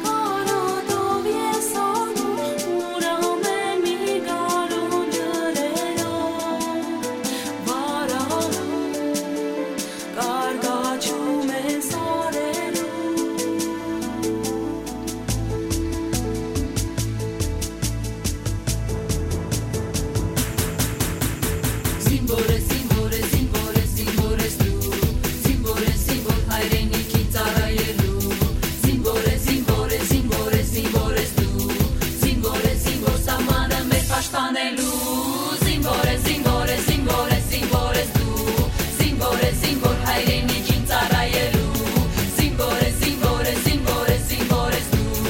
կարոտով ես անում, ուր ամեն մի գարուն ջրերով վարարում, կարկաչում են սարերում։ Զինվոր է, զինվոր է, զինվոր է, զինվոր ես դու, զինվոր է, զինվոր հայրենիքին ծառայելու, զինվոր է, զինվոր է, զինվոր է, զինվոր ես դու, զինվոր է, զինվոր սահմանը մեր պաշտպանելու, զինվոր է, զինվոր է, զինվոր է, զինվոր ես դու, զինվոր է, զինվոր հայրենիքին ծառայելու, զինվոր է, զինվոր է, զինվոր է, զինվոր ես դու,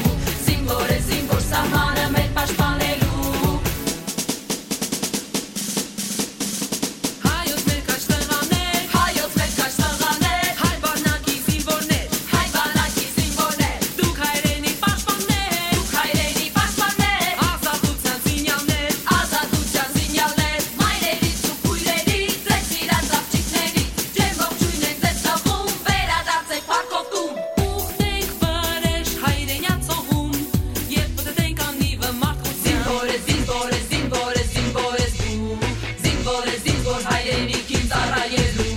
զինվոր է, զինվոր սահմանը մեր պաշտպանելու։ Հայոց մեր քաջ տղաներ, հայոց մեր քաջ տղաներ, հայ բանակի զինվորներ, հայ բանակի զինվորներ, դուք հայրենի պաշտպաններ, դուք հայրենի պաշտպաններ, ազատության զինյալներ, ազատության զինյալներ, մայրերից ու քույրերից, ձեր սիրած աղջիկներից, ջերմ ողջույն ենք ձեզ տալու, վերադարձեք փառքով տուն, ուխտենք վրեժ հայրենյաց օղում, երբ պտտենք անիվը մարդկության։ Զինվոր է, զինվոր է, զինվոր է, զինվոր ես դու, զինվոր է, զինվոր հայրենիքին ծառայելու։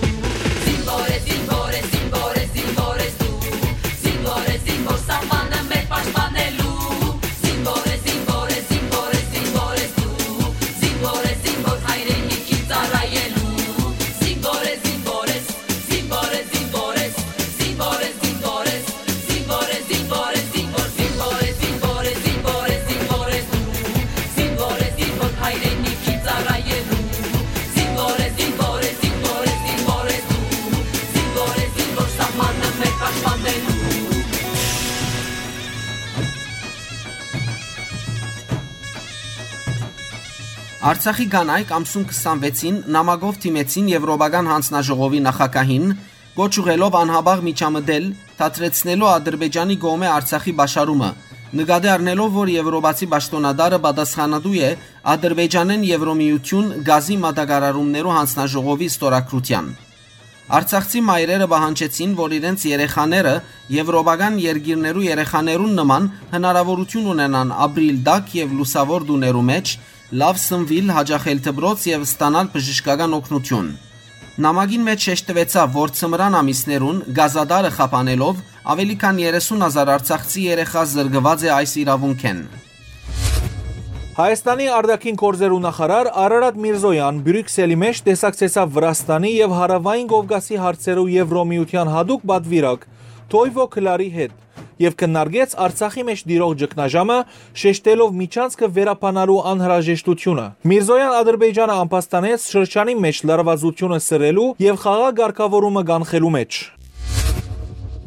Զինվոր է, զինվոր է, զինվոր է, զինվոր ես դու, զինվոր է, զինվոր սահմանը մեր պաշտպանելու։ Զինվոր է, զինվոր է, զինվոր է, զինվոր ես դու, զինվոր է, զինվոր հայրենիքին ծառայելու։ Զինվոր է, զինվոր ես, զինվոր է, զինվոր ես, զինվոր է, զինվոր ես, զինվոր է, զինվոր է, զինվոր, զինվոր է, զինվոր է, զինվոր ես դու, զինվոր է, զինվոր հայրենիքին ծառայելու։ Զինվոր է, զինվոր է, զինվոր է, զինվոր ես դու, զինվոր է, զինվոր սահմանը մեր պաշտպանելու։ Արցախի կանայք ամսուն քսանվեցին նամակով դիմեցին Եվրոպական հանձնաժողովի նախագահին, կոչ ուղղելով անհապաղ միջամտել դադրեցնելու Ադրբեջանի կողմէ Արցախի պաշարումը, նկատի առնելով, որ եվրոպացի պաշտօնատարը պատասխանատու է Ադրբեջանէն Եվրոմիություն գազի մատակարարումներու հանձնաժողովի ստորագրութեան։ Արցախցի մայրերը պահանջեցին, որ իրենց երեխաները եվրոպական երկիրներու երեխաներուն նման հնարաւորութիւն ունենան ապրիլ տաք եւ լուսաւոր տուներու մէջ, լաւ սնուիլ, յաճախել դպրոց եւ ստանալ բժշկական օգնութիւն։ Նամակին մէջ շեշտուեցաւ, որ ձմրան ամիսներուն գազատարը խափանելով աւելի քան երեսուն հազար արցախցի երեխայ զրկուած է այս իրաւունքէն։ Հայաստանի արտաքին գործերու նախարար Արարատ Միրզոյան Բրիւքսելի մէջ տեսակցեցաւ Վրաստանի եւ Հարաւային Կովկասի հարցերու Եվրոմիության յատուկ պատուիրակ Թոյվո Քլարի հետ եւ քննարկեց Արցախի մէջ տիրող ճգնաժամը, շեշտելով միջանցքը վերաբանալու անհրաժեշտությունը։ Միրզոյան Ադրբեջանը ամբաստանեց շրջանի մէջ լարվածությունը սրելու եւ խաղաղ կարգաւորումը կանխելու մէջ։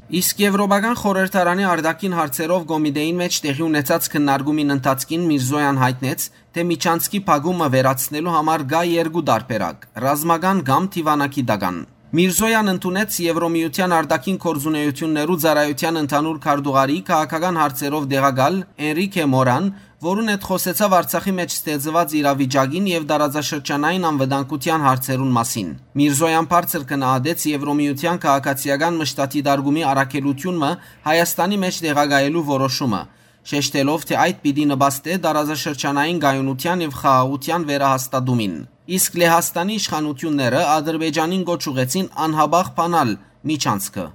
Իսկ Եվրոպական խորհրդարանի արտաքին հարցերով կոմիտեին մէջ տեղի ունեցած քննարկումին ընթացքին Միրզոյան յայտնեց, թէ միջանցքի փակումը վերացնելու համար կայ երկու տարբերակ՝ ռազմական կամ դիւանագիտական։ Միրզոյան ընդունեց Եվրոմիության արտաքին գործունեություններու ծառայութեան ընդհանուր քարտուղարի քաղաքական հարցերով տեղակալ Էնրիքե Մորան, որուն հետ խօսեցաւ Արցախի մէջ ստեղծուած իրավիճակին եւ տարածաշրջանային անվտանգութեան հարցերուն մասին։ Միրզոյան բարձր գնահատեց Եվրոմիութեան քաղաքացիական մշտադիտարկումի առաքելութիւնը Հայաստանի մէջ տեղակայելու որոշումը, շեշտելով, թէ այդ պիտի նպաստէ տարածաշրջանային կայունութեան եւ խաղաղութեան վերահաստատումին։ Իսկ Լեհաստանի իշխանութիւնները Ադրբեջանին կոչ ուղղեցին անհապաղ բանալ միջանցքը։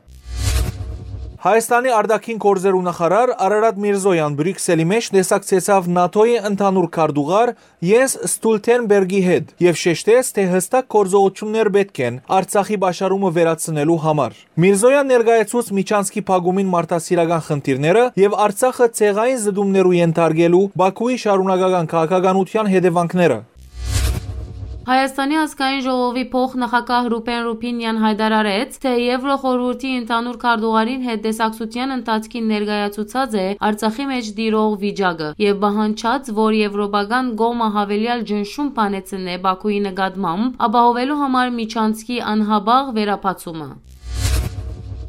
Հայաստանի արտաքին գործերու նախարար Արարատ Միրզոյան Բրիւքսելի մէջ տեսակցեցաւ նատօ-ի ընդհանուր քարտուղար Յենս Ստուլթենբերգի հետ եւ շեշտեց, թէ յստակ գործողութիւններ պէտք են Արցախի պաշարումը վերացնելու համար։ Միրզոյան ներկայացուց միջանցքի փակումին մարդասիրական խնդիրները եւ Արցախը ցեղային զտումներու ենթարկելու Բաքուի շարունակական քաղաքականութեան հետեւանքները։ Հայաստանի ազգային ժողովի փոխնախագահ Ռուբեն Ռուբինյան յայտարարեց, թէ Եվրոխորհուրդի ընդհանուր քարտուղարին հետ տեսակցութեան ընթացքին ներկայացուցած է Արցախի մէջ տիրող վիճակը եւ պահանջած, որ եվրոպական կողմը յաւելեալ ճնշում բանեցնէ Բաքուի նկատմամբ, ապահովելու համար միջանցքի անհապաղ վերաբացումը։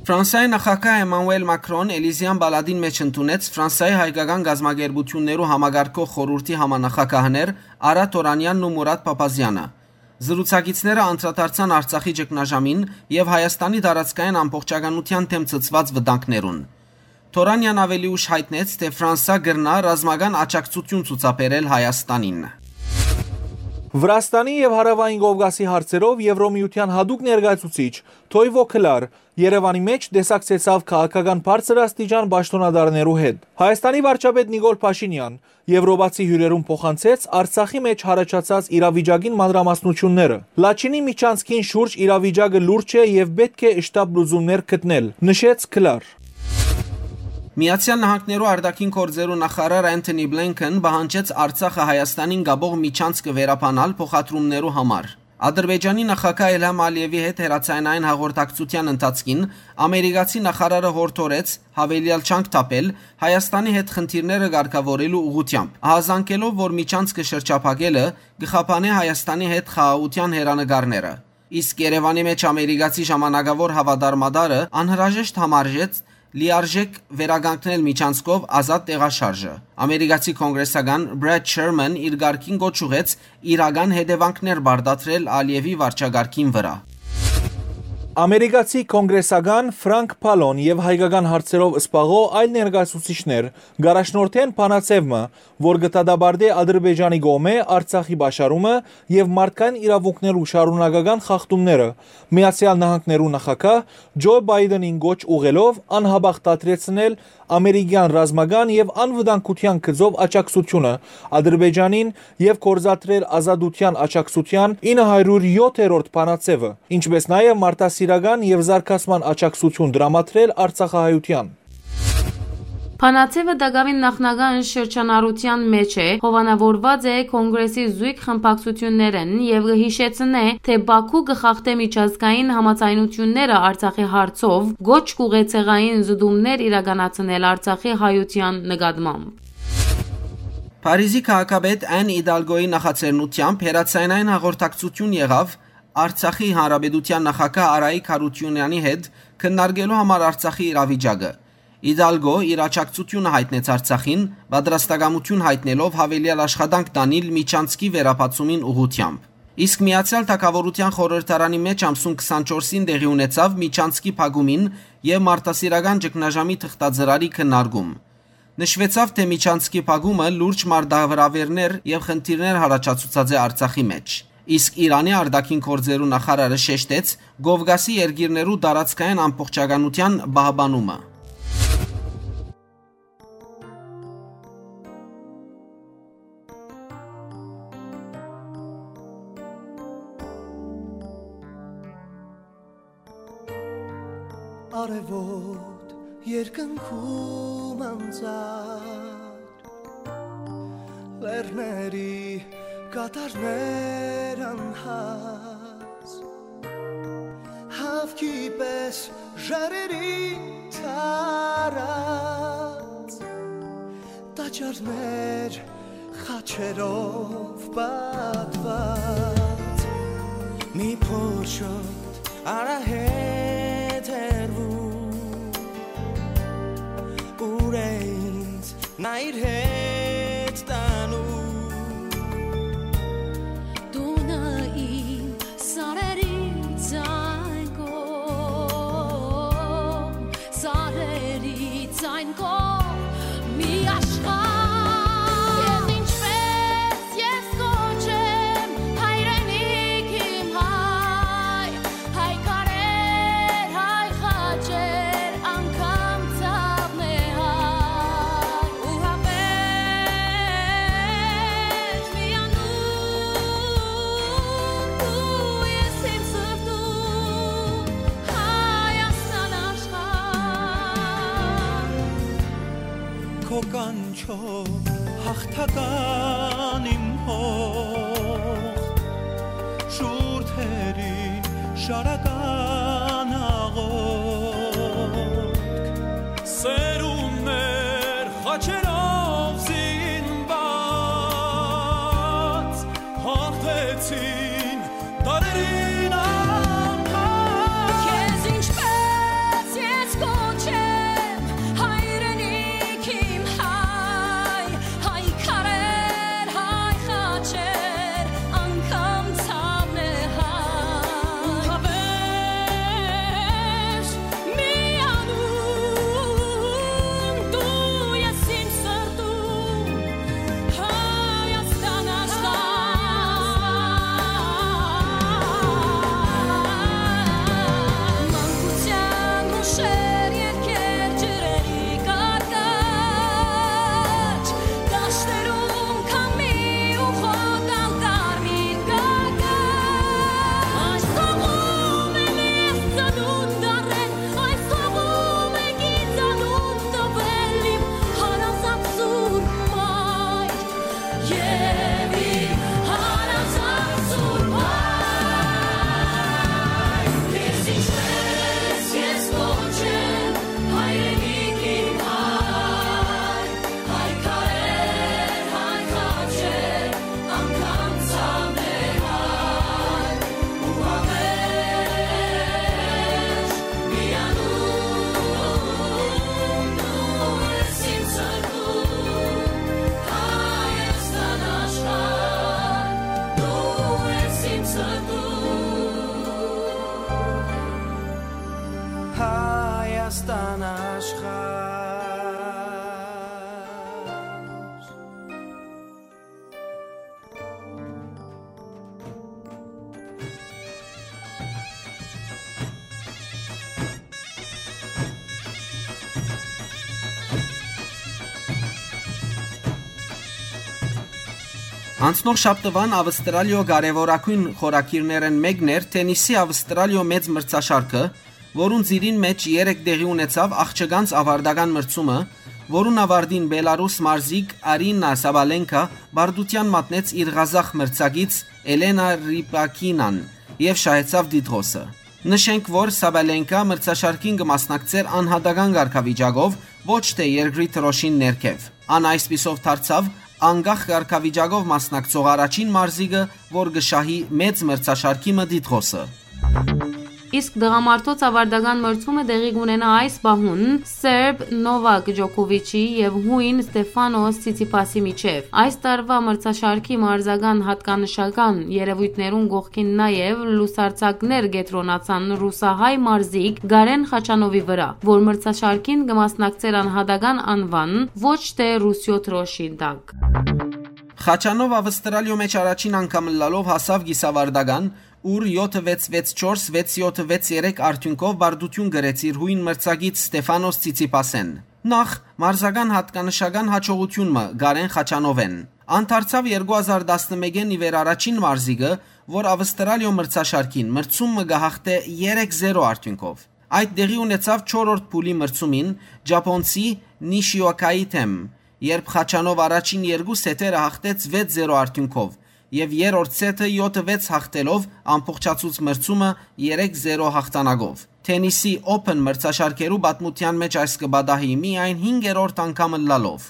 Ֆրանսայի նախագահ Էմանուել Մակրոն Էլիզեան պալատին մէջ ընդունեց Ֆրանսայի հայկական կազմակերպութիւններու համակարգող խորհուրդի համանախագահներ Արա Թորանեանն ու Մուրատ Փափազեանը։ Զրուցակիցները անդրադարձան Արցախի ճգնաժամին եւ Հայաստանի տարածքային ամբողջականութեան դէմ ցցուած վտանգներուն։ Թորանեան աւելի ուշ յայտնեց, թէ Ֆրանսա կրնայ ռազմական աջակցութիւն ցուցաբերել Հայաստանին։ Վրաստանի եւ Հարաւային Կովկասի հարցերով Եվրոմիութեան յատուկ ներկայացուցիչ Թոյվո Քլար Երեւանի մէջ տեսակցեցաւ քաղաքական բարձր աստիճան պաշտօնատարներու հետ։ Հայաստանի վարչապետ Նիկոլ Փաշինեան եվրոպացի հիւրերուն փոխանցեց Արցախի մէջ յառաջացած իրավիճակին մանրամասնութիւնները։ Լաչինի միջանցքին շուրջ իրավիճակը լուրջ է եւ պէտք է շտապ լուծումներ գտնել, նշեց Քլար։ Միացեալ Նահանգներու արտաքին գործերու նախարար Անթոնի Բլինքեն պահանջեց Արցախը Հայաստանին կապող միջանցքը վերաբանալ փոխադրումներու համար։ Ադրբեջանի նախագահ Իլհամ Ալիևի հետ հեռաձայնային հաղորդակցութեան ընթացքին ամերիկացի նախարարը յորդորեց յաւելեալ ջանք թափել Հայաստանի հետ խնդիրները կարգաւորելու ուղղութեամբ, ահազանգելով, որ միջանցքը շրջափակելը կը խափանէ Հայաստանի հետ խաղաղութեան հեռանկարները։ Իսկ Երեւանի մէջ ամերիկացի ժամանակաւոր հաւատարմատարը անհրաժեշտ համարժեց լիարժէք վերականգնել միջանցքով ազատ տեղաշարժը։ Ամերիկացի կոնգրեսական Բրեդ Շերմեն իր կարգին կոչ ուղղեց իրական հետեւանքներ պարտադրել Ալիևի վարչակարգին վրայ։ Ամերիկացի կոնգրեսական Ֆրանկ Փալոն եւ հայկական հարցերով զբաղող այլ ներկայացուցիչներ կ'առաջնորդեն բանաձեւ մը, որ կը դատապարտէ Ադրբեջանի կողմէ Արցախի պաշարումը եւ մարդկային իրաւունքներու շարունակական խախտումները, Միացեալ Նահանգներու նախագահ Ջո Պայտենին կոչ ուղղելով անհապաղ դադրեցնել ամերիկեան ռազմական եւ անվտանգութեան գծով աջակցութիւնը Ադրբեջանին եւ գործադրել Ազատութեան աջակցութեան ինը հարիւր յոթերորդ բանաձեւը, ինչպէս նաեւ մարդասիրական եւ զարգացման աջակցութիւն տրամադրել արցախահայութեան։ Բանաձեւը տակաւին նախնական շրջանառութեան մէջ է, հովանաւորուած է Կոնգրեսի զոյգ խմբակցութիւններէն եւ կը յիշեցնէ, թէ Բաքու կը խախտէ միջազգային համաձայնութիւնները Արցախի հարցով, կոչ կ'ուղղէ ցեղային զտումներ իրականացնել Արցախի հայութեան նկատմամբ։ Փարիզի քաղաքապետ Ան Իդալգոյի նախաձեռնութեամբ հեռաձայնային հաղորդակցութիւն եղաւ Արցախի Հանրապետութեան նախագահ Արայիկ Հարությունյանի հետ քննարկելու համար Արցախի իրավիճակը։ Իդալգո իր աջակցութիւնը յայտնեց Արցախին, պատրաստակամութիւն յայտնելով յաւելեալ աշխատանք տանիլ միջանցքի վերաբացումին ուղղութեամբ։ Իսկ Միացեալ Թագաւորութեան խորհրդարանի մէջ ամսուն քսանչորսին տեղի ունեցաւ միջանցքի փակումին եւ մարդասիրական ճգնաժամի թղթածրարի քննարկում։ Նշուեցաւ, թէ միջանցքի փակումը լուրջ մարտավրավերներ եւ խնդիրներ յառաջացուցած է Արցախի մէջ։ Իսկ Իրանի արտաքին գործերու նախարարը շեշտեց Կովկասի երկիրներու տարածքային ամբողջականութեան պահպանումը։ Արեւոտ երկնքում անծառ, լեռների կատարներ անհաս, հավքի պես ժայռերին թարած, տաճարներ խաչերով պատված, մի փոչոտ արահետ հեռվում, ուր է ինձ նա իր հետ Այն քո մի աշխարհ։ Քեզ ինչպես ես կոչեմ, հայրենիք իմ հայ, հայ քարեր, հայ խաչեր, անգամ ցաւն է հայ, ու հավերժ միանում դու ես իմ սրտում, Հայաստան աշխարհ։ Քո կանչով հաղթական իմ հող, շուրթերին շարական աղոթք։ Սերունդներ խաչերով զինված, հաղթեցին դարերին անհատ։ Քեզ ինչպես ես կոչեմ, հայրենիք իմ հայ, հայ քարեր, հայ խաչեր, անգամ ցաւն է հայ, ու հավերժ միանում դու ես իմ սրտում, Հայաստան աշխարհ։ Մանկության հուշեր, երգեր, ջրերի կարկաչ, դաշտերում քամի ու խոտալ կարմիր կարկաչ։ Այս հողում եմ ես ծնունդ առել, այս հողում է գիծանուն տվել իմ հարազատ սուրբ մայր։ Եւ իմ հարազատ սուրբ հայր, քեզ ինչպես ես կոչեմ, հայրենիք իմ հայ, հայ քարեր, հայ խաչեր, անգամ ցաւն է հայ, ու հավերժ միանում դու ես իմ սրտում, Հայաստան աշխարհ, դու ես իմ սրտում։ Հայաստան աշխարհ։ Անցնող շաբթուան Ավստրալիոյ կարեւորագոյն խորագիրներէն մէկն էր թենիսի Ավստրալիոյ մեծ մրցաշարքը, որուն ծիրին մէջ երեկ տեղի ունեցաւ աղջկանց ավարտական մրցումը, որուն աւարտին Բելարուս մարզիկ Արինա Սաբալենկա պարտութեան մատնեց իր ղազախ մրցակից Էլենա Ռիպակինան եւ շահեցաւ տիտղոսը։ Նշենք, որ Սաբալենկա մրցաշարքին կը մասնակցէր անհատական կարգավիճակով, ոչ թէ երկրի դրոշին ներքեւ։ Ան այսպիսով դարձաւ անկախ կարգավիճակով մասնակցող առաջին մարզիկը, որ կը շահի մեծ մրցաշարքի մը տիտղոսը։ Իսկ տղամարդոց աւարտական մրցումը տեղի կունենայ այս պահուն Սերբ Նովակ Ջոկովիչի եւ Յոյն Ստեֆանոս Ցիցիփասի միջեւ։ Այս տարուայ մրցաշարքի մարզական յատկանշական երեւոյթներուն կողքին նաեւ լուսարձակներ կեդրոնացան ռուսահայ մարզիկ Գարեն Խաչանովի վրայ, որ մրցաշարքին կը մասնակցէր անհատական անուան, ոչ թէ Ռուսիոյ դրոշին տակ։ Խաչանով Ավստրալիոյ մէջ առաջին անգամ ըլլալով հասաւ կիսաւարտական, ուր յոթը վեց վեց չորս, վեց յոթը վեց երեք արդիւնքով պարտութիւն կրեց իր յոյն մրցակից Ստեֆանոս Ցիցիփասէն։ Նախ, մարզական յատկանշական յաջողութիւն մը Գարեն Խաչանովէն։ Ան դարձաւ երկու հազար տասնմէկէն ի վեր առաջին մարզիկը, որ Ավստրալիոյ մրցաշարքին մրցում մը կը յաղթէ երեք զերո արդիւնքով։ Այդ տեղի ունեցաւ չորրորդ փուլի մրցումին ճապոնցի Նիշիոկայի դէմ, երբ Խաչանով առաջին երկու սեթերը յաղթեց վեց զերո արդիւնքով եւ երրորդ սեթը յոթը վեց յաղթելով ամբողջացուց մրցումը երեք զերո յաղթանակով։ Թենիսի Open մրցաշարքերու պատմութեան մէջ այս կը պատահի միայն հինգերորդ անգամ ըլլալով։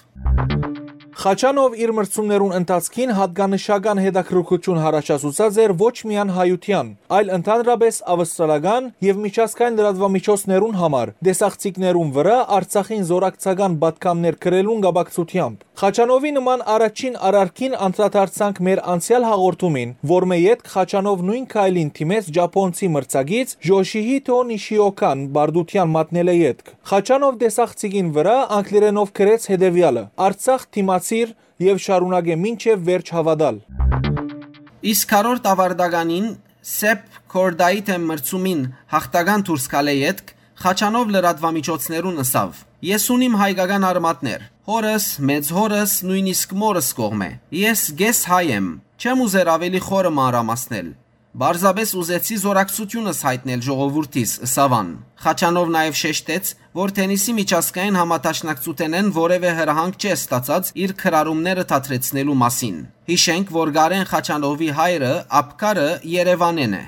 Խաչանով իր մրցումներուն ընթացքին յատկանշական հետաքրքրութիւն յառաջացուցած էր ոչ միայն հայութեան, այլ ընդհանրապէս ավստրալական եւ միջազգային լրատուամիջոցներուն համար, տեսախցիկներուն վրայ Արցախին զօրակցական պատգամներ գրելուն կապակցութեամբ։ Խաչանովի նման առաջին արարքին անդրադարձանք մեր անցեալ հաղորդումին, որմէ ետք Խաչանով նոյն քայլին դիմեց ճապոնցի մրցակից Յոշիհիթո Նիշիոքան պարտութեան մատնելէ ետք։ Խաչանով տեսախցիկին վրայ անգլերէնով գրեց հետեւեալը. «Արցախ դիմացիր եւ շարունակէ մինչեւ վերջ հաւատալ»։ Իսկ քառորդ աւարտականին Սեփ Քորդայի դէմ մրցումին յաղթական դուրս գալէ ետք Խաչանով լրատուամիջոցներուն ըսաւ. «Ես ունիմ հայկական արմատներ։ Հորս, մեծ հորս, նոյնիսկ մորս կողմէ։ Ես կես հայ եմ։ Չեմ ուզեր աւելի խորը մանրամասնել։ Պարզապէս ուզեցի զօրակցութիւնս յայտնել ժողովուրդիս», ըսաւ ան։ Խաչանով նաեւ շեշտեց, որ թենիսի միջազգային համադաշնակցութենէն որեւէ հրահանգ չէ ստացած իր գրառումները դադրեցնելու մասին։ Յիշենք, որ Կարեն Խաչանովի հայրը, ափկարը Երեւանէն է։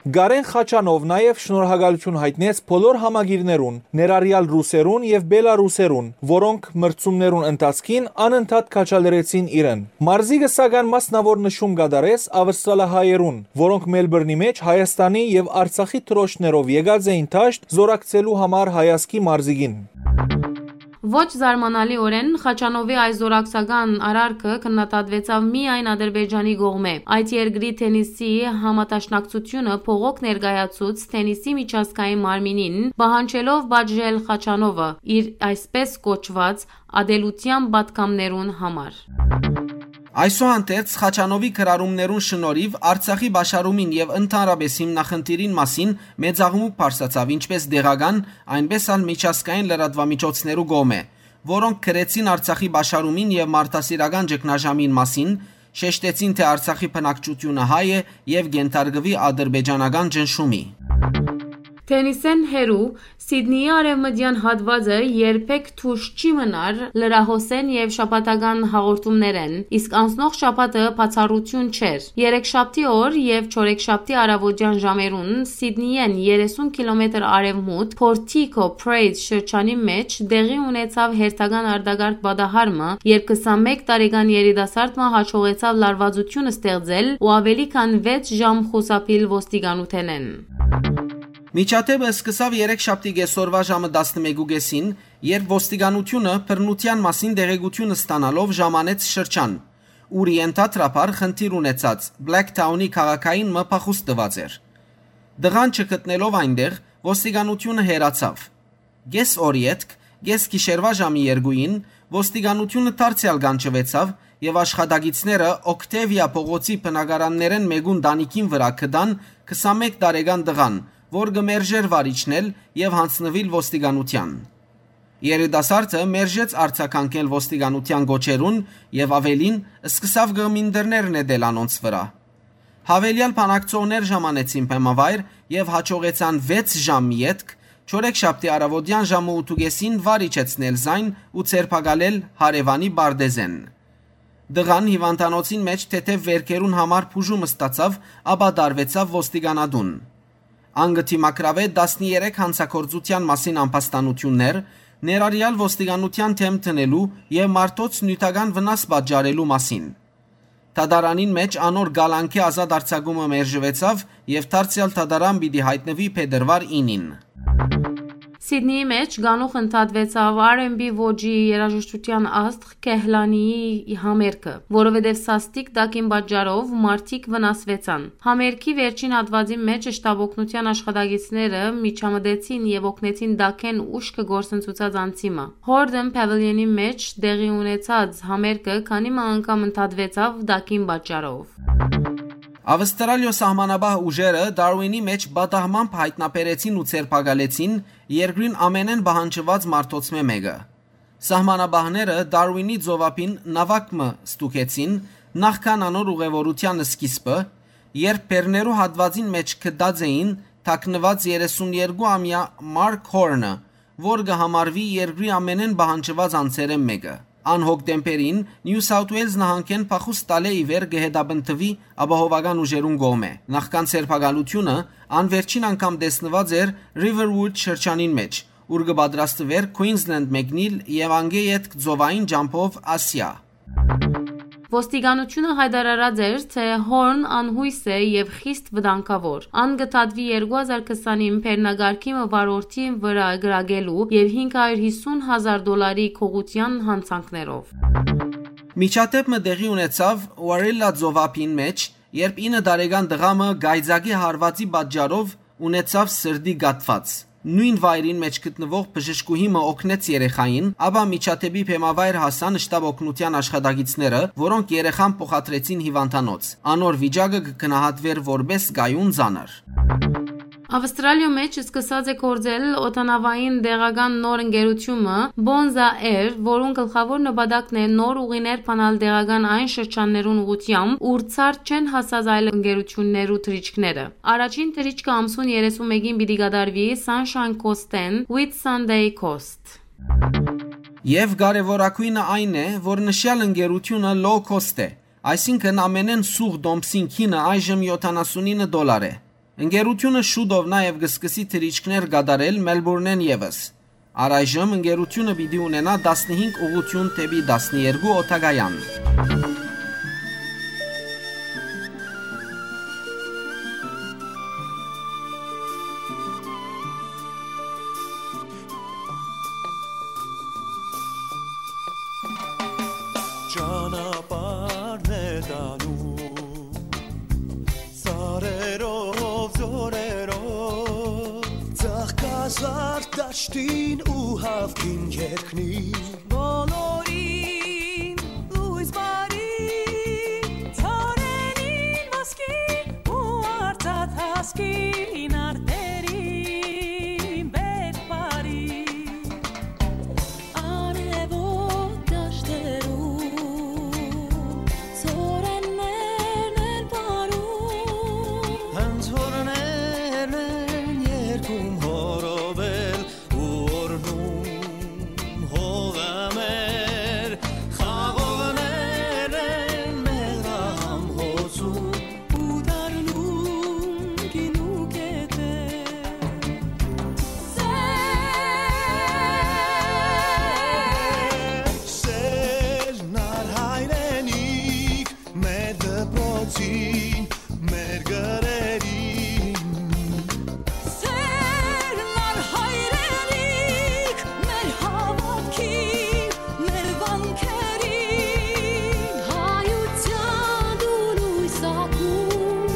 Կարեն Խաչանով նաեւ շնորհակալութիւն յայտնեց բոլոր համակիրներուն, ներառեալ ռուսերուն եւ բելառուսերուն, որոնք մրցումներուն ընթացքին անընդհատ քաջալերեցին իրեն։ Մարզիկը սակայն մասնաւոր նշում կատարեց ավստրալահայերուն, որոնք Մելբուրնի մէջ Հայաստանի եւ Արցախի դրոշներով եկած էին դաշտ զօրակցելու համար հայազգի մարզիկին։ Ոչ զարմանալիօրէն, Խաչանովի այս զօրակցական արարքը քննադատուեցաւ միայն Ադրբեջանի կողմէ։ Այդ երկրի թենիսի համադաշնակցութիւնը բողոք ներկայացուց թենիսի միջազգային մարմինին, պահանջելով պատժել Խաչանովը՝ իր այսպես կոչուած ատելութեան պատգամներուն համար։ Այսուհանդերձ, Խաչանովի գրառումներուն շնորհիվ Արցախի պաշարումին եւ ընդհանրապէս հիմնախնդիրին մասին մեծաղմուկ բարձրացաւ ինչպէս տեղական, այնպէս ալ միջազգային լրատուամիջոցներու կողմէ, որոնք գրեցին Արցախի պաշարումին եւ մարդասիրական ճգնաժամին մասին, շեշտեցին, թէ Արցախի բնակչութիւնը հայ է եւ կենթարկուի ադրբեջանական ճնշումի։ Թենիսէն հեռու, Սիդնիի արեւմտեան հատուածը երբեք դուրս չի մնար լրահոսէն եւ շաբաթական հաղորդումներէն, իսկ անցնող շաբաթը բացառութիւն չէր։ Երեքշաբթի օր եւ չորեքշաբթի առավոտեան ժամերուն Սիդնիէն երեսուն կիլոմետր արեւմուտք Portico Prays շրջանի մէջ տեղի ունեցաւ հերթական արտակարգ պատահարմը, երբ քսանմէկ տարեկան երիտասարդ մը հաջողեցաւ լարվածութիւն ստեղծել ու աւելի քան վեց ժամ խուսափիլ ոստիկանութենէն։ Միջադէպը սկսաւ երեքշաբթի կեսօրուայ ժամը տասնմէկու կէսին, երբ ոստիկանութիւնը բռնութեան մասին տեղեկութիւն ստանալով ժամանեց շրջան, ուր ենթադրաբար խնդիր ունեցած Բլեքթաունի քաղաքային մը փախուստ տուած էր։ Տղան չգտնելով այնտեղ, ոստիկանութիւնը հեռացաւ։ Կես օր ետք, կես գիշերուայ ժամի երկուին, ոստիկանութիւնը դարձեալ կանչուեցաւ եւ աշխատակիցները Օքտեվիա փողոցի բնակարաններէն մէկուն տանիքին վրայ գտան քսանմէկ տարեկան տղան, որ կը մերժէր վարիչն ել եւ յանձնուիլ ոստիկանութեան։ Երիտասարդը մերժեց արձագանքել ոստիկանութեան կոչերուն եւ աւելին, սկսաւ կղմինդրներ նետել անոնց վրայ։ Յաւելեալ բանակցողներ ժամանեցին բեմավայր եւ յաջողեցան վեց ժամ ետք, չորեքշաբթի առավոտեան ժամը ութ ու կէսին վար իջեցնել զայն ու ձերբակալել հարեւանի պարտեզէն։ Տղան հիւանդանոցին մէջ թեթեւ վէրքերուն համար բուժում ստացաւ, ապա տարուեցաւ ոստիկանատուն։ Ան կը դիմագրաւէ տասներեք յանցագործութեան մասին ամբաստանութիւններ, ներառեալ ոստիկանութեան դէմ դնելու եւ մարդոց նիւթական վնաս պատճառելու մասին։ Դատարանին մէջ անոր կալանքի ազատ արձակումը մերժուեցաւ եւ դարձեալ դատարան պիտի յայտնուի փետրուար ինին։ Սիդնիի մէջ կանուխ ընդհատուեցաւ R and B ոճի երաժշտութեան աստղ Քեհլանիի համերգը, որովհետեւ սաստիկ տակին պատճառով մարդիկ վնասուեցան։ Համերգի վերջին հատուածի մէջ շտապօգնութեան աշխատակիցները միջամտեցին եւ օգնեցին տակէն ուշքը գործընծուցած անձի մը։ Հորդն Պաւիլիոնի մէջ տեղի ունեցած համերգը քանի մը անգամ ընդհատուեցաւ տակին պատճառով։ Ավստրալիոյ սահմանապահ ուժերը Դարուինի մէջ պատահմամբ յայտնաբերեցին ու ձերբակալեցին երկրին ամենէն պահանջուած մարդոցմէ մէկը։ Սահմանապահները Դարուինի ծովափին նաւակ մը ստուգեցին նախքան անոր ուղեւորութեան սկիզբը, երբ բեռներու հատուածին մէջ գտած էին թաքնուած երեսուն երկու ամեայ Մարկ Հորնը, որ կը համարուի երկրի ամենէն պահանջուած անձերէն մէկը։ Ան հոկտեմբերին Նիու Սաութ Ուէյլզ նահանգէն փախուստ տալէ ի վեր կը հետապնդուի ապահովական ուժերուն կողմէ։ Նախքան ձերբակալութիւնը ան վերջին անգամ տեսնուած էր Riverwood շրջանին մէջ, ուր կը պատրաստուէր Queensland մեկնիլ եւ անկէ ետք ծովային ճամբով Ասիա։ Ոստիկանութիւնը յայտարարած էր, թէ Հորն անյոյս է եւ խիստ վտանգաւոր։ Ան կը դատուի երկու հազար քսանին բեռնակարգի մը վարորդին վրայ կրակելու եւ հինգ հարիւր յիսուն հազար դոլարի գողութեան յանցանքներով։ Միջադէպ մը տեղի ունեցաւ Warilla ծովափին մէջ, երբ ինը տարեկան տղայ մը կայծակի հարուածի պատճառով ունեցաւ սրտի կաթուած։ Նոյն վայրին մէջ գտնուող բժշկուհի մը օգնեց երեխային, ապա միջադէպի բեմավայր հասան շտապօգնութեան աշխատակիցները, որոնք երեխան փոխադրեցին հիվանդանոց։ Անոր վիճակը կը գնահատուէր որպէս կայուն ծանր։ Ավստրալիոյ մէջ սկսած է գործել օդանաւային տեղական նոր ընկերութիւնը Bonza Air, որուն գլխաւոր նպատակն է նոր ուղիներ բանալ տեղական այն շրջաններուն ուղղութեամբ, ուր ցարդ չեն հասած այլ ընկերութիւններու թռիչքները։ Առաջին թռիչքը ամսուն երեսուն մէկին պիտի կատարուի Sunshine Coast-էն Whitsunday Coast։ Եւ կարեւորագոյնը այն է, որ նշեալ ընկերութիւնը low cost է, այսինքն ամենէն սուղ տոմսին գինը այժմ յոթանասունինը դոլար է։ Ընկերութիւնը շուտով նաեւ կը սկսի թռիչքներ կատարել Մելբուրնէն եւս։ Առայժմ ընկերութիւնը պիտի ունենայ տասնհինգ ուղղութիւն դէպի տասներկու օդակայան։ Ճանապարհն է տանում սարերով, ձորերով, ծաղկազարդ դաշտին ու հաւքին երկնին։ Բոլորին լոյս բարի, ծառերին ոսկի ու արծաթ հասկին արտերին բերք բարի։ Արեւոտ դաշտերու ծորեններն են պարում, հնձորներն են երգում հորովել ու օրհնում հողը մեր, խաղողներն են մեղրահամ հոսում ու դառնում գինու կետեր։ Սեր, սեր, նար հայրենիք, մեր դպրոցին, մեր գրերին։ Սեր, նար հայրենիք, մեր հաւատքին, մեր վանքերին, հայութեան դու լոյս ակում,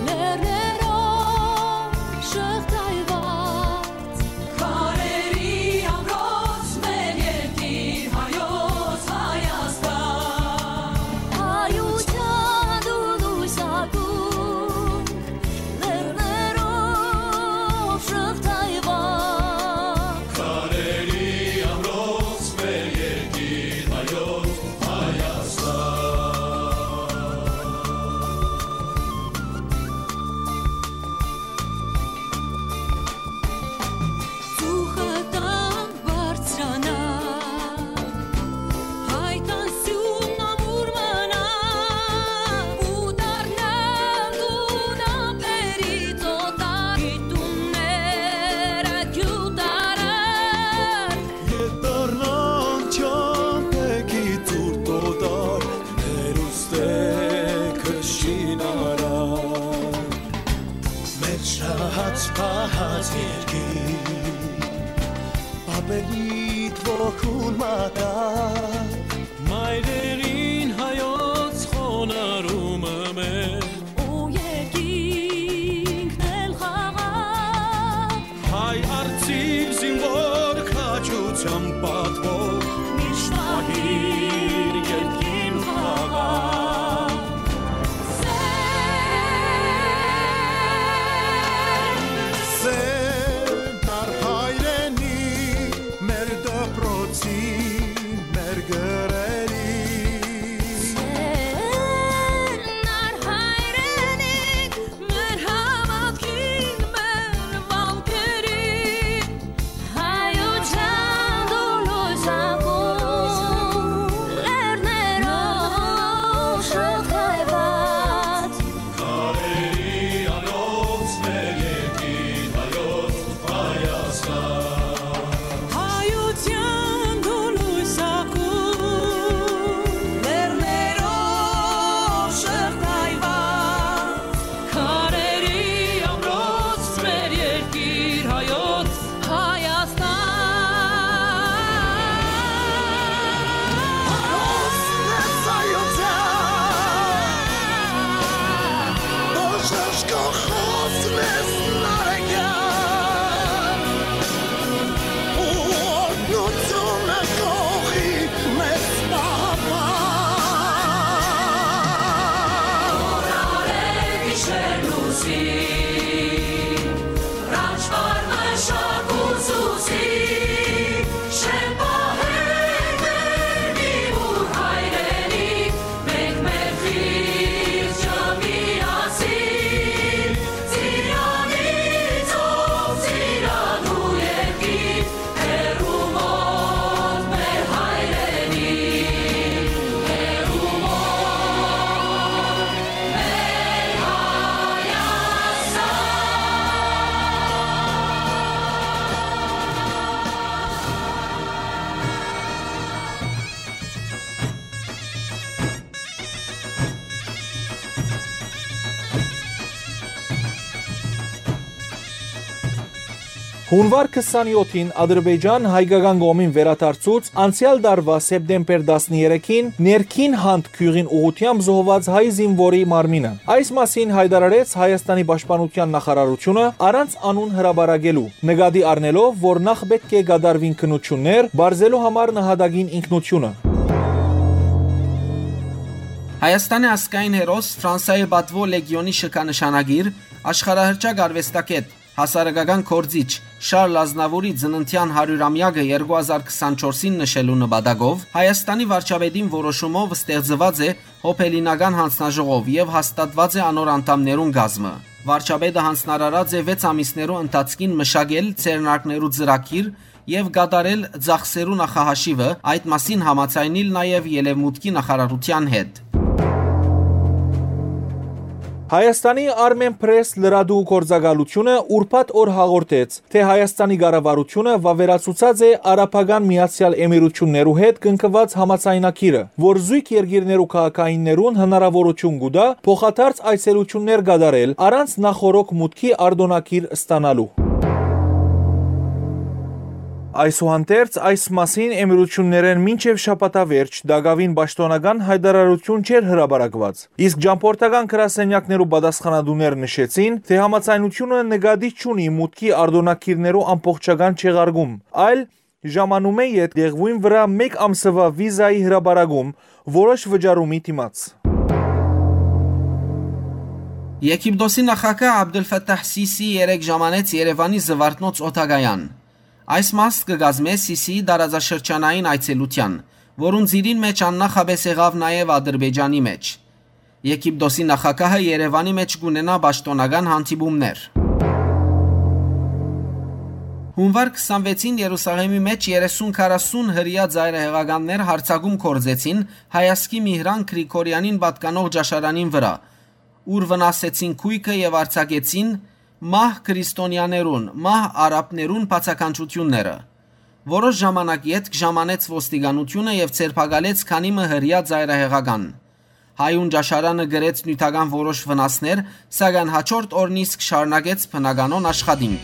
լեռներով շղթայուած, քարերի ամրոց մեր երկիր հայոց Հայաստան։ Հայութեան դու լոյս ակում, լեռներով շղթայուած։ Քարերի ամրոց մեր երկիր հայոց Հայաստան։ Ծուխը տան բարձրանայ, հայկան սիւնն ամուր մնայ, ու դառնալ դուն ափերից օտար, գիտունները գյուտարար։ Ետ դառնան չամպեքի ցուրտ օտար, հերուստե քշին արար։ Մեր շահած պահած երկիր, պապերիդ ոգուն մատակ, մայրերին հայոց խոնարհումը մեր, ու երկինքն էլ խաղաղ։ Հայ արծիվ զինվոր քաջութեան պատվով, միշտ պահիր երկիր խաղաղ։ Սեր, նար հայրենի, մեր դպրոցի, մեր գրերի։ Սեր, նար հայրենի, մեր հաւատքին, մեր վանքերին, հայութեան դու լոյս Յունուար քսանեօթին Ադրբեջան հայկական կողմին վերադարձուց անցեալ տարուայ սեպտեմբեր տասներեքին ներքին Հանդ գիւղին ուղղութեամբ զոհուած հայ զինուորի մարմինը։ Այս մասին յայտարարեց Հայաստանի պաշտպանության նախարարությունը՝ առանց անուն հրապարակելու, նկատի առնելով, որ նախ պէտք է կատարուին քննութիւններ՝ պարզելու համար նահատակին ինքնությունը։ Հայաստանի ազգային հերոս, Ֆրանսայի պատուոյ լեգիոնի շքանշանագիր, աշխարհահռչակ արուեստագէտ, հասարակական գործիչ Շարլ Ազնաւուրի ծննդեան հարիւրամեակը երկու հազար քսանչորսին նշելու նպատակով Հայաստանի վարչապետին որոշումով ստեղծուած է հոբելինական յանձնաժողով եւ հաստատուած է անոր անդամներուն կազմը։ Վարչապետը յանձնարարած է վեց ամիսներու ընթացքին մշակել ձեռնարկներու ծրագիր եւ կատարել ծախսերու նախահաշիւը, այդ մասին համաձայնիլ նաեւ Ելեւմուտքի նախարարութեան հետ։ Հայաստանի Armenpress լրատու գործակալությունը ուրբաթ օր հաղորդեց, թէ Հայաստանի կառավարությունը վաւերացուցած է Արաբական Միացեալ Էմիրութիւններու հետ կնքուած համաձայնագիրը, որ զոյգ երկիրներու քաղաքայիններուն հնարաւորութիւն կու տայ փոխադարձ այցելութիւններ կատարել առանց նախօրոք մուտքի արտօնագիր ստանալու։ Այսուհանդերձ, այս մասին Էմիրութիւններէն մինչեւ շաբաթավերջ տակաւին պաշտօնական յայտարարութիւն չէր հրապարակուած, իսկ ճամբորդական գրասենյակներու պատասխանատուներ նշեցին, թէ համաձայնութիւնը նկատի չունի մուտքի արտօնագիրներու ամբողջական չեղարկում, այլ ժամանումէ ետք տեղւոյն վրայ մէկ ամսուայ վիզայի հրապարակում որոշ վճարումի դիմաց։ Եգիպտոսի նախագահ Աբդուլ Ֆաթահ Սիսի երեկ ժամանեց Երեւանի Զուարթնոց օդակայան։ Այս մաս կը կազմէ Սիսիի տարածաշրջանային այցելութեան, որուն ծիրին մէջ աննախապէս եղաւ նաեւ Ադրբեջանի մէջ։ Եգիպտոսի նախագահը Երեւանի մէջ կունենայ պաշտօնական հանդիպումներ։ Յունուար քսանվեցին Երուսաղէմի մէջ երեսուն քառասուն հրեայ ծայրահեղականներ յարձակում գործեցին հայազգի Միհրան Գրիգորեանին պատկանող ճաշարանին վրայ, ուր վնասեցին գոյքը եւ արձակեցին մահ քրիստոնեաներուն, մահ արաբներուն բացականչութիւնները։ Որոշ ժամանակ ետք ժամանեց ոստիկանութիւնը եւ ձերբակալեց քանի մը հրեայ ծայրահեղական։ Հայուն ճաշարանը կրեց նիւթական որոշ վնասներ, սակայն հաջորդ օրն իսկ շարունակեց բնականոն աշխատին։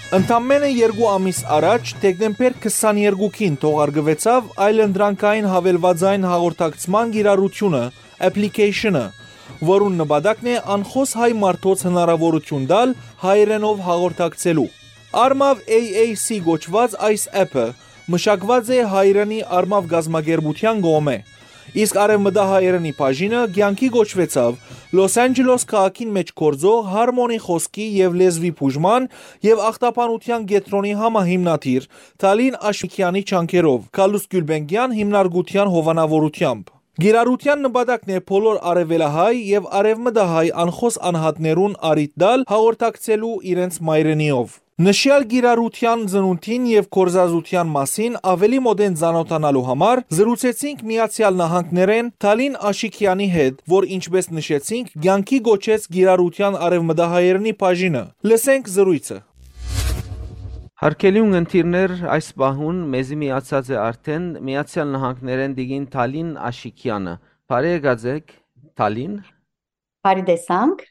Ընդամենը երկու ամիս առաջ, դեկտեմբեր քսաներկուին թողարկուեցաւ այլընտրանքային հավելվածային հաղորդակցման կիրառութիւնը, application-ը, որուն նպատակն է անխոս հայ մարդոց հնարաւորութիւն տալ հայերէնով հաղորդակցելու։ Արմաւ A A C կոչուած այս app-ը մշակուած է հայերէնի Արմաւ կազմակերպութեան կողմէ։ Իսկ արեւմտահայերէնի բաժինը կեանքի կոչուեցաւ Լոս Անջելոս քաղաքին մէջ գործող Harmony խօսքի եւ լեզուի բուժման եւ ախտաբանութեան կեդրոնի համահիմնադիր Թալին Աշիկեանի ջանքերով, Գալուստ Գիւլբենկեան հիմնարկութեան հովանաւորութեամբ։ Կիրառութեան նպատակն է բոլոր արեւելահայ եւ արեւմտահայ անխոս անհատներուն առիթ տալ հաղորդակցելու իրենց մայրենիով։ Նշեալ կիրառութեան ծնունդին եւ գործածութեան մասին աւելի մօտէն ծանօթանալու համար զրուցեցինք Միացեալ Նահանգներէն Թալին Աշիկեանի հետ, որ, ինչպէս նշեցինք, կեանքի կոչեց կիրառութեան արեւմտահայերէնի բաժինը։ Լսենք զրոյցը։ Հարգելի ունգընտիրներ, այս պահուն մեզի միացած է արդէն Միացեալ Նահանգներէն տիկին Թալին Աշիկեանը։ Բարի եկած եք, Թալին։ Բարի տեսանք։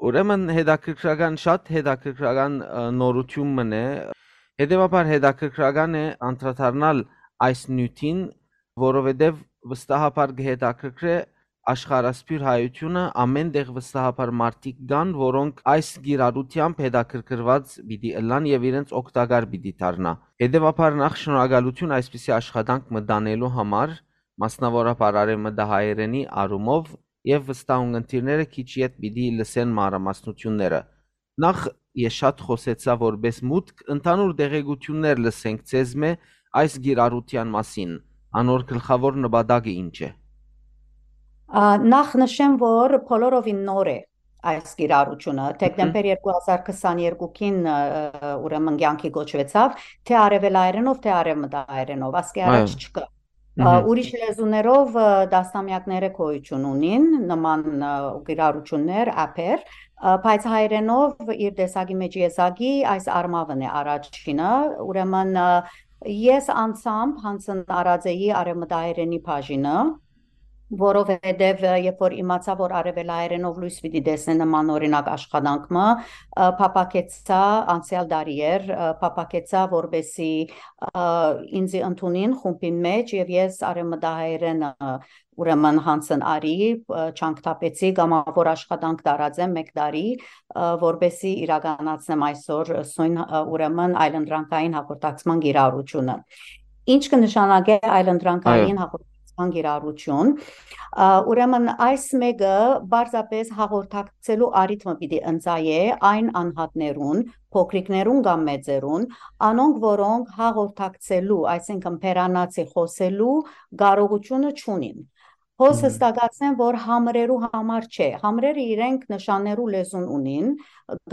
Ուրեմն հետաքրքրական, շատ հետաքրքրական, ը, նորութիւն մըն է։ Հետեւաբար հետաքրքրական է անդրադառնալ այս նիւթին, որովհետեւ վստահաբար կը հետաքրքրէ աշխարհասփիւռ հայութիւնը, ամէն տեղ վստահաբար մարդիկ կան, որոնք այս կիրառութեամբ հետաքրքրուած պիտի ըլլան եւ իրենց օգտակար պիտի դառնայ։ Հետեւաբար նախ շնորհակալութիւն այսպիսի աշխատանք մտանելու համար, մասնաւորաբար արեւմտահայերէնի առումով, եւ վստահ ունգընտիրները քիչ յետ պիտի լսեն մանրամասնութիւնները։ Նախ, ես շատ խօսեցայ որպէս մուտք, ընդհանուր տեղեկութիւններ լսենք ձեզմէ այս կիրառութեան մասին, անոր գլխաւոր նպատակը ինչ է։ Ա, նախ նշեմ, որ բոլորովին նոր է այս կիրառութիւնը։ Մհմ։ Դեկտեմբեր երկու հազար քսաներկուին, ը, ուրեմն կեանքի կոչուեցաւ, թէ արեւելայերէնով, թէ արեւմտահայերէնով, ասկէ առաջ Այո։ չկայ։ Ա, Մհմ։ Ուրիշ լեզուներով, ը, տասնամեակներ է գոյութիւն ունին, նման, ը, կիրառութիւններ, app-եր, ը, բայց հայերէնով իր տեսակի մէջ եզակի այս Արմաւն է առաջինը, ուրեմն, ը, ես անձամբ յանձն առած էի արեւմտահայերէնի բաժինը, որովհետեւ, ը, երբ որ իմացայ, որ արեւելահայերէնով լոյս պիտի տեսնէ նման օրինակ աշխատանք մը, ը, փափաքեցայ անցեալ տարի էր, ը, փափաքեցայ, որպէսզի, ը, ինծի ընդունին խումբին մէջ եւ ես արեւմտահայերէնը, ուրեմն յանձն առի, ը, ջանք թափեցի, կամաւոր աշխատանք տարած եմ մէկ տարի, ը, որպէսզի իրականացնեմ այսօր սոյն, ը, ուրեմն այլընտրանքային հաղորդակցման կիրառութիւնը։ Ինչ կը նշանակէ այլընտրանքային Այո։ հաղորդակցման կիրառութիւն։ Ա, ուրեմն այս մէկը պարզապէս հաղորդակցելու առիթ մը պիտի ընծայէ այն անհատներուն, փոքրիկներուն կամ մեծերուն, անոնք, որոնք հաղորդակցելու, այսինքն բերանացի խօսելու կարողութիւնը չունին։ Հոս Մհմ։ հստակացնեմ, որ համրերու համար չէ։ Համրերը իրենք նշաններու լեզուն ունին,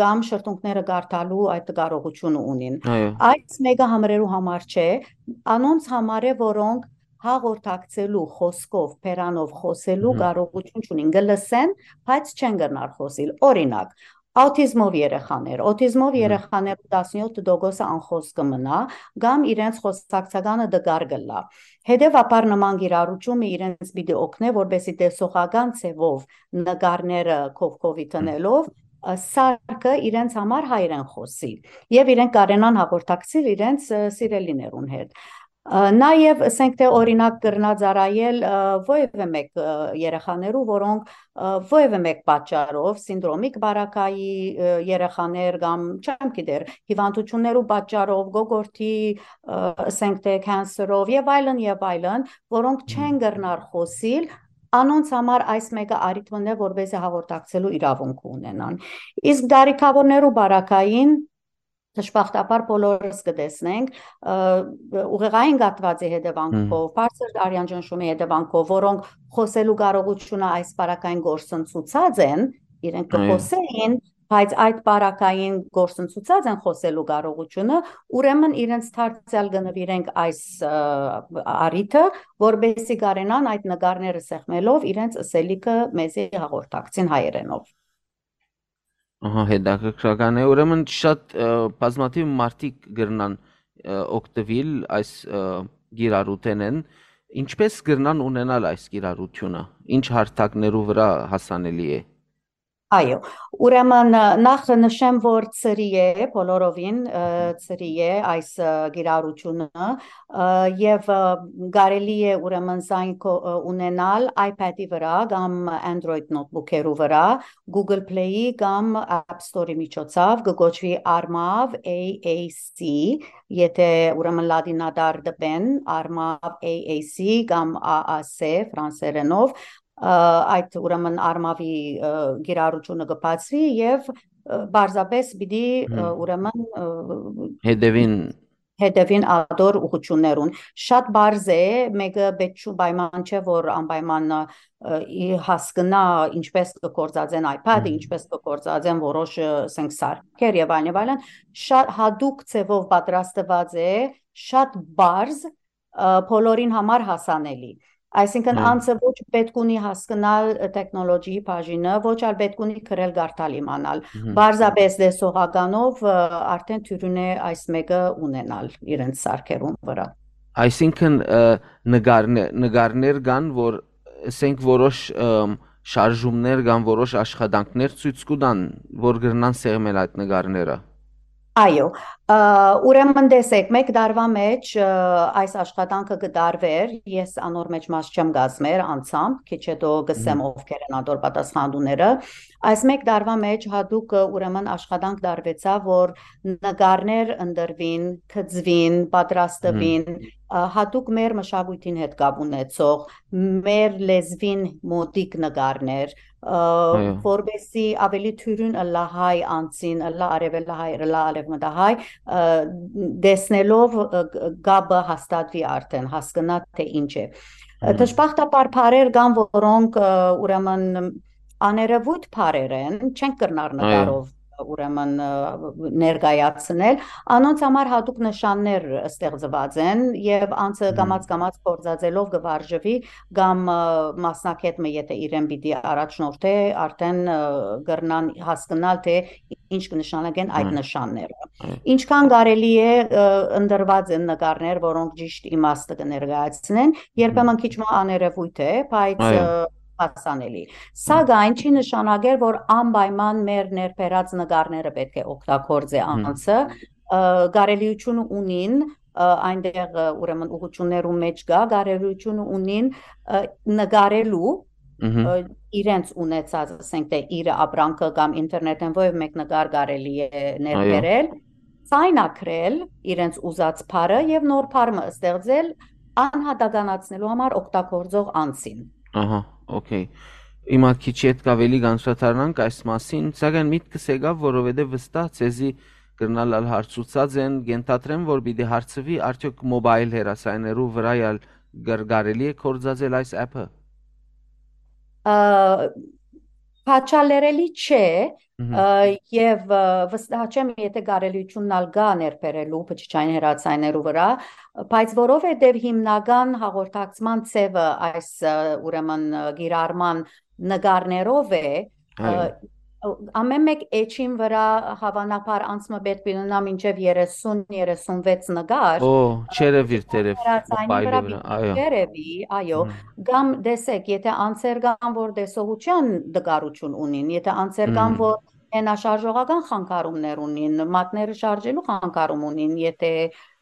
կամ շրթունքները կարդալու այդ կարողութիւնը ունին։ Այո։ Այս մէկը համրերու համար չէ, անոնց համար է, որոնք հաղորդակցելու, խօսքով, բերանով խօսելու Մհմ։ կարողութիւն չունին։ Կը լսեն, բայց չեն կրնար խօսիլ։ Օրինակ, աուտիզմով երեխաներ, աուտիզմով Մհմ։ երեխաներու տասնեօթ տոկոսը անխօս կը մնայ, կամ իրենց խօսակցականը տկար կ'ըլլայ։ Հետեւաբար նման կիրառութիւնը իրենց պիտի օգնէ, որպէսզի տեսողական ձեւով նկարները քովքովի Մհմ։ տնելով, ը, սարքը իրենց համար հայերէն խօսի եւ իրենք կարենան հաղորդակցիլ իրենց, ը, սիրելիներուն հետ։ Ը, նաեւ, ըսենք թէ, օրինակ կրնայ ծառայել, ը, որեւէ մէկ, ը, երեխաներու, որոնք, ը, որեւէ մէկ պատճառով, սինդրոմիկ բարակայի, ը, երեխաներ կամ, չեմ գիտեր, հիւանդութիւններու պատճառով, գոգորտի, ը, ըսենք թէ, քանսերով եւ այլն եւ այլն, որոնք Մհմ։ չեն կրնար խօսիլ, անոնց համար այս մէկը առիթ մը է, որպէսզի հաղորդակցելու իրաւունքը ունենան։ Իսկ դարիքաւորներու բարակային, դժբախտաբար, բոլորս կը տեսնենք, ը, ուղեղային կաթուածի հետեւանքով, Մհմ։ բարձր արեանճնշումի հետեւանքով, որոնք խօսելու կարողութիւնը այս բարակային կորսնցուցած են, իրենք կը Այո։ խօսէին, բայց այդ բարակային կորսնցուցած են խօսելու կարողութիւնը, ուրեմն իրենց դարձեալ կը նուիրենք այս, ը, առիթը, որպէսզի կարենան այդ նկարները սեղմելով իրենց ըսելիքը մեզի հաղորդակցին հայերէնով։ Ահա, հետաքրքրական է։ Ուրեմն շատ, ը, բազմաթիւ մարդիկ կրնան, ը, օգտվել այս, ը, կիրառութենէն։ Ինչպէս կրնան ունենալ այս կիրառութիւնը։ Ինչ հարթակներու վրա հասանելի է։ Այո, ուրեմն, ը, նախ նշեմ, որ ծրի է, բոլորովին, ը, ծրի է այս, ը, կիրառութիւնը, ը, եւ, ը, կարելի է ուրեմն զայն քո-, ը, ունենալ iPad-ի վրա կամ Android notebook-երու վրա, Google Play-ի կամ App Store-ի միջոցով, կը կոչուի Armav A A C, եթե ուրեմն լատինատառ դպեն, Armav A A C կամ A A C ֆրանսերենով, ը, այդ ուրեմն Armav-ի, ը, կիրառութիւնը կը բացուի եւ, ը, պարզապէս պիտի, ը, Հմ։ ուրեմն, ը, Հետևին։ հետևին ատոր ուղղութիւններուն։ Շատ պարզ է, մէկը պէտք չի պայման չէ, որ անպայման, ը, ի հասկնայ ինչպէս կը գործածեն iPad-ը, Հմ։ ինչպէս կը գործածեն որոշ, ը, ասենք, սարքեր եւ այլն եւ այլն։ Շատ հատուկ ձեւով պատրաստուած է, շատ պարզ, ը, բոլորին համար հասանելի։ Այսինքն, Հմ։ անձը ոչ պէտք ունի հասկնալ, ը, տեխնոլոգիի բաժինը, ոչ ալ պէտք ունի գրել կարդալ իմանալ։ Հմ։ Պարզապէս տեսողականով, ը, արդեն թիւրին է այս մէկը ունենալ իրենց սարքերուն վրա։ Այսինքն, ը, նկարնե-, նկարներ կան, որ, ասենք, որոշ, ըմ, շարժումներ կամ որոշ աշխատանքներ ցոյց կու տան, որ կրնան սեղմել այդ նկարները։ Այո, ը, ուրեմն տեսեք, մէկ տարուա մէջ, ը, այս աշխատանքը կը տարուէր, ես անոր մէջ մաս չեմ կազմեր անձամբ, քիչ հետո կսեմ Մհմ։ ովքեր են ատոր պատասխանատուները։ Այս մէկ տարուա մէջ հատուկ, ը, ուրեմն աշխատանք տարուեցաւ, որ նկարներ ընտրուին, գծուին, պատրաստուին, Մհմ։ ը, հատուկ մեր մշակոյթին հետ կապ ունեցող, մեր լեզուին մօտիկ նկարներ, ը, Այո։ որպեսզի ավելի թիւրին ըլլայ հայ անձին, ըլլայ արեւելահայ, ըլլայ արեւմտահայ, ը, տեսնելով, ը, կ-, կապը հաստատուի արդեն, հասկնայ թէ ինչ է։ Ը, Հմ։ դժբախտաբար բառեր կան, որոնք, ը, ուրեմն աներևոյթ բառեր են, չենք կրնար Այո։ նկարով, ուրեմն, ը, ներկայացնել։ Անոնց համար հատուկ նշաններ ստեղծուած են եւ անձը Հմ։ կամաց-կամաց գործածելով կը վարժուի կամ, ը, մասնագետ մը, եթե իրեն պիտի առաջնորդէ, արդեն, ը, կրնան հասկնալ, թէ ինչ կը նշանակեն այդ Հմ։ նշանները։ Հմ։ Ինչքան կարելի է, ը, ընտրուած են նկարներ, որոնք ճիշտ իմաստը կը ներկայացնեն, երբեմն Հմ։ քիչ մը աներևոյթ է, բայց, Այո։ ը, հասանելի։ Հմ։ Սակայն չի նշանակեր, որ անպայման մեր ներբերած նկարները պէտք է օգտագործէ Հմ։ անձը, ը, կարելիությունը ունին, ը, այնտեղ, ը, ուրեմն ուղղություններու մէջ կայ, կարելիությունը ունին, ը, նկարելու, Մհմ։ ը, իրենց ունեցած, ասենք թէ իրը ապրանքը կամ ինտերնետէն որեւէ մէկ նկար կարելի է Այո։ ներբերել, ձայնագրել իրենց ուզած բառը եւ նոր բառ մը ստեղծել անհատականացնելու համար օգտագործող անձին։ Ահա, օքեյ։ Հիմա քիչ ետք աւելի կանդրադառնանք այս մասին, սակայն միտքս եկաւ, որովհետեւ վստահ ձեզի կրնալ ալ հարցուցած են, կենթադրեմ, որ պիտի հարցուի, արդեօք մոբայլ հեռասայներու վրայ ալ կր-, կարելի է գործածել այս app-ը։ Ա, քաչալերելի չէ, Մհմ։ ա, եւ, ա, վստահ չեմ, եթե կարելիությունն ալ կա ներբերելու բջջային հեռացայներու վրա, բայց որովհետեւ հիմնական հաղորդակցման ձևը այս, ա, ուրեմն, ա, կիրառման նկարներով է, ա, Այո։ ամեն մէկ էջին վրա հավանաբար անց մը պէտք պիտի ունենա մինչեւ երեսուն, երեսունվեց նկար, Օ, ա, չերևիր թերեւ, հեռացայնի մոբայլի վրա վրա, պիտի այո։ չերևի, այո, Մհմ։ կամ տեսեք, եթե անձեր կան, որ տեսողության տկարություն ունին, եթե անձեր կան, Մհմ։ որ մենաշարժողական խանգարումներ ունին, մատները շարժելու խանգարում ունին, եթե,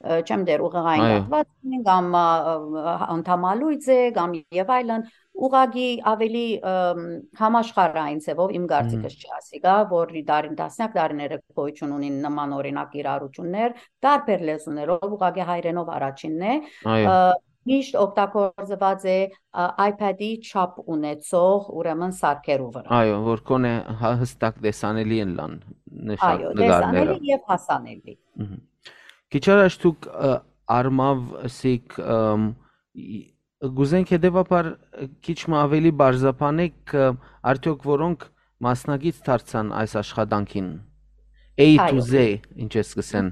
ը, չեմ դեր ուղեղային Այո։ կախված ունին, կամ, ա, ա, անդամալույծ է, կամ եւ այլն, ուղղակի ավելի, ըմ, համաշխարհային ձևով իմ Մհմ։ կարծիքս չի ասի, գա, որ դարին, տասնյակ տարիները գոյություն ունին նման օրինակ իրարություններ, տարբեր լեզուներով, ուղղակի հայերէնով առաջինն է, Այո։ ը, միշտ օգտագործված է, ա, iPad-ի չափ ունեցող, ուրեմն, սարքերու վրա։ Այո, որ կոնե հա-, հստակ տեսանելի են լան նշան Այո, նկարները։ տեսանելի եւ հասանելի։ Մհմ։ Քիչ առաջ դուք, ը, Արմավ սիկ, ըմ, ի-, կուզենք հետեւաբար, ը, քիչ մը ավելի բարձրաբանեք, ը, արդյոք որոնք մասնակից դարձան այս աշխատանքին։ A to Այո։ Z, ինչ ես կսեն։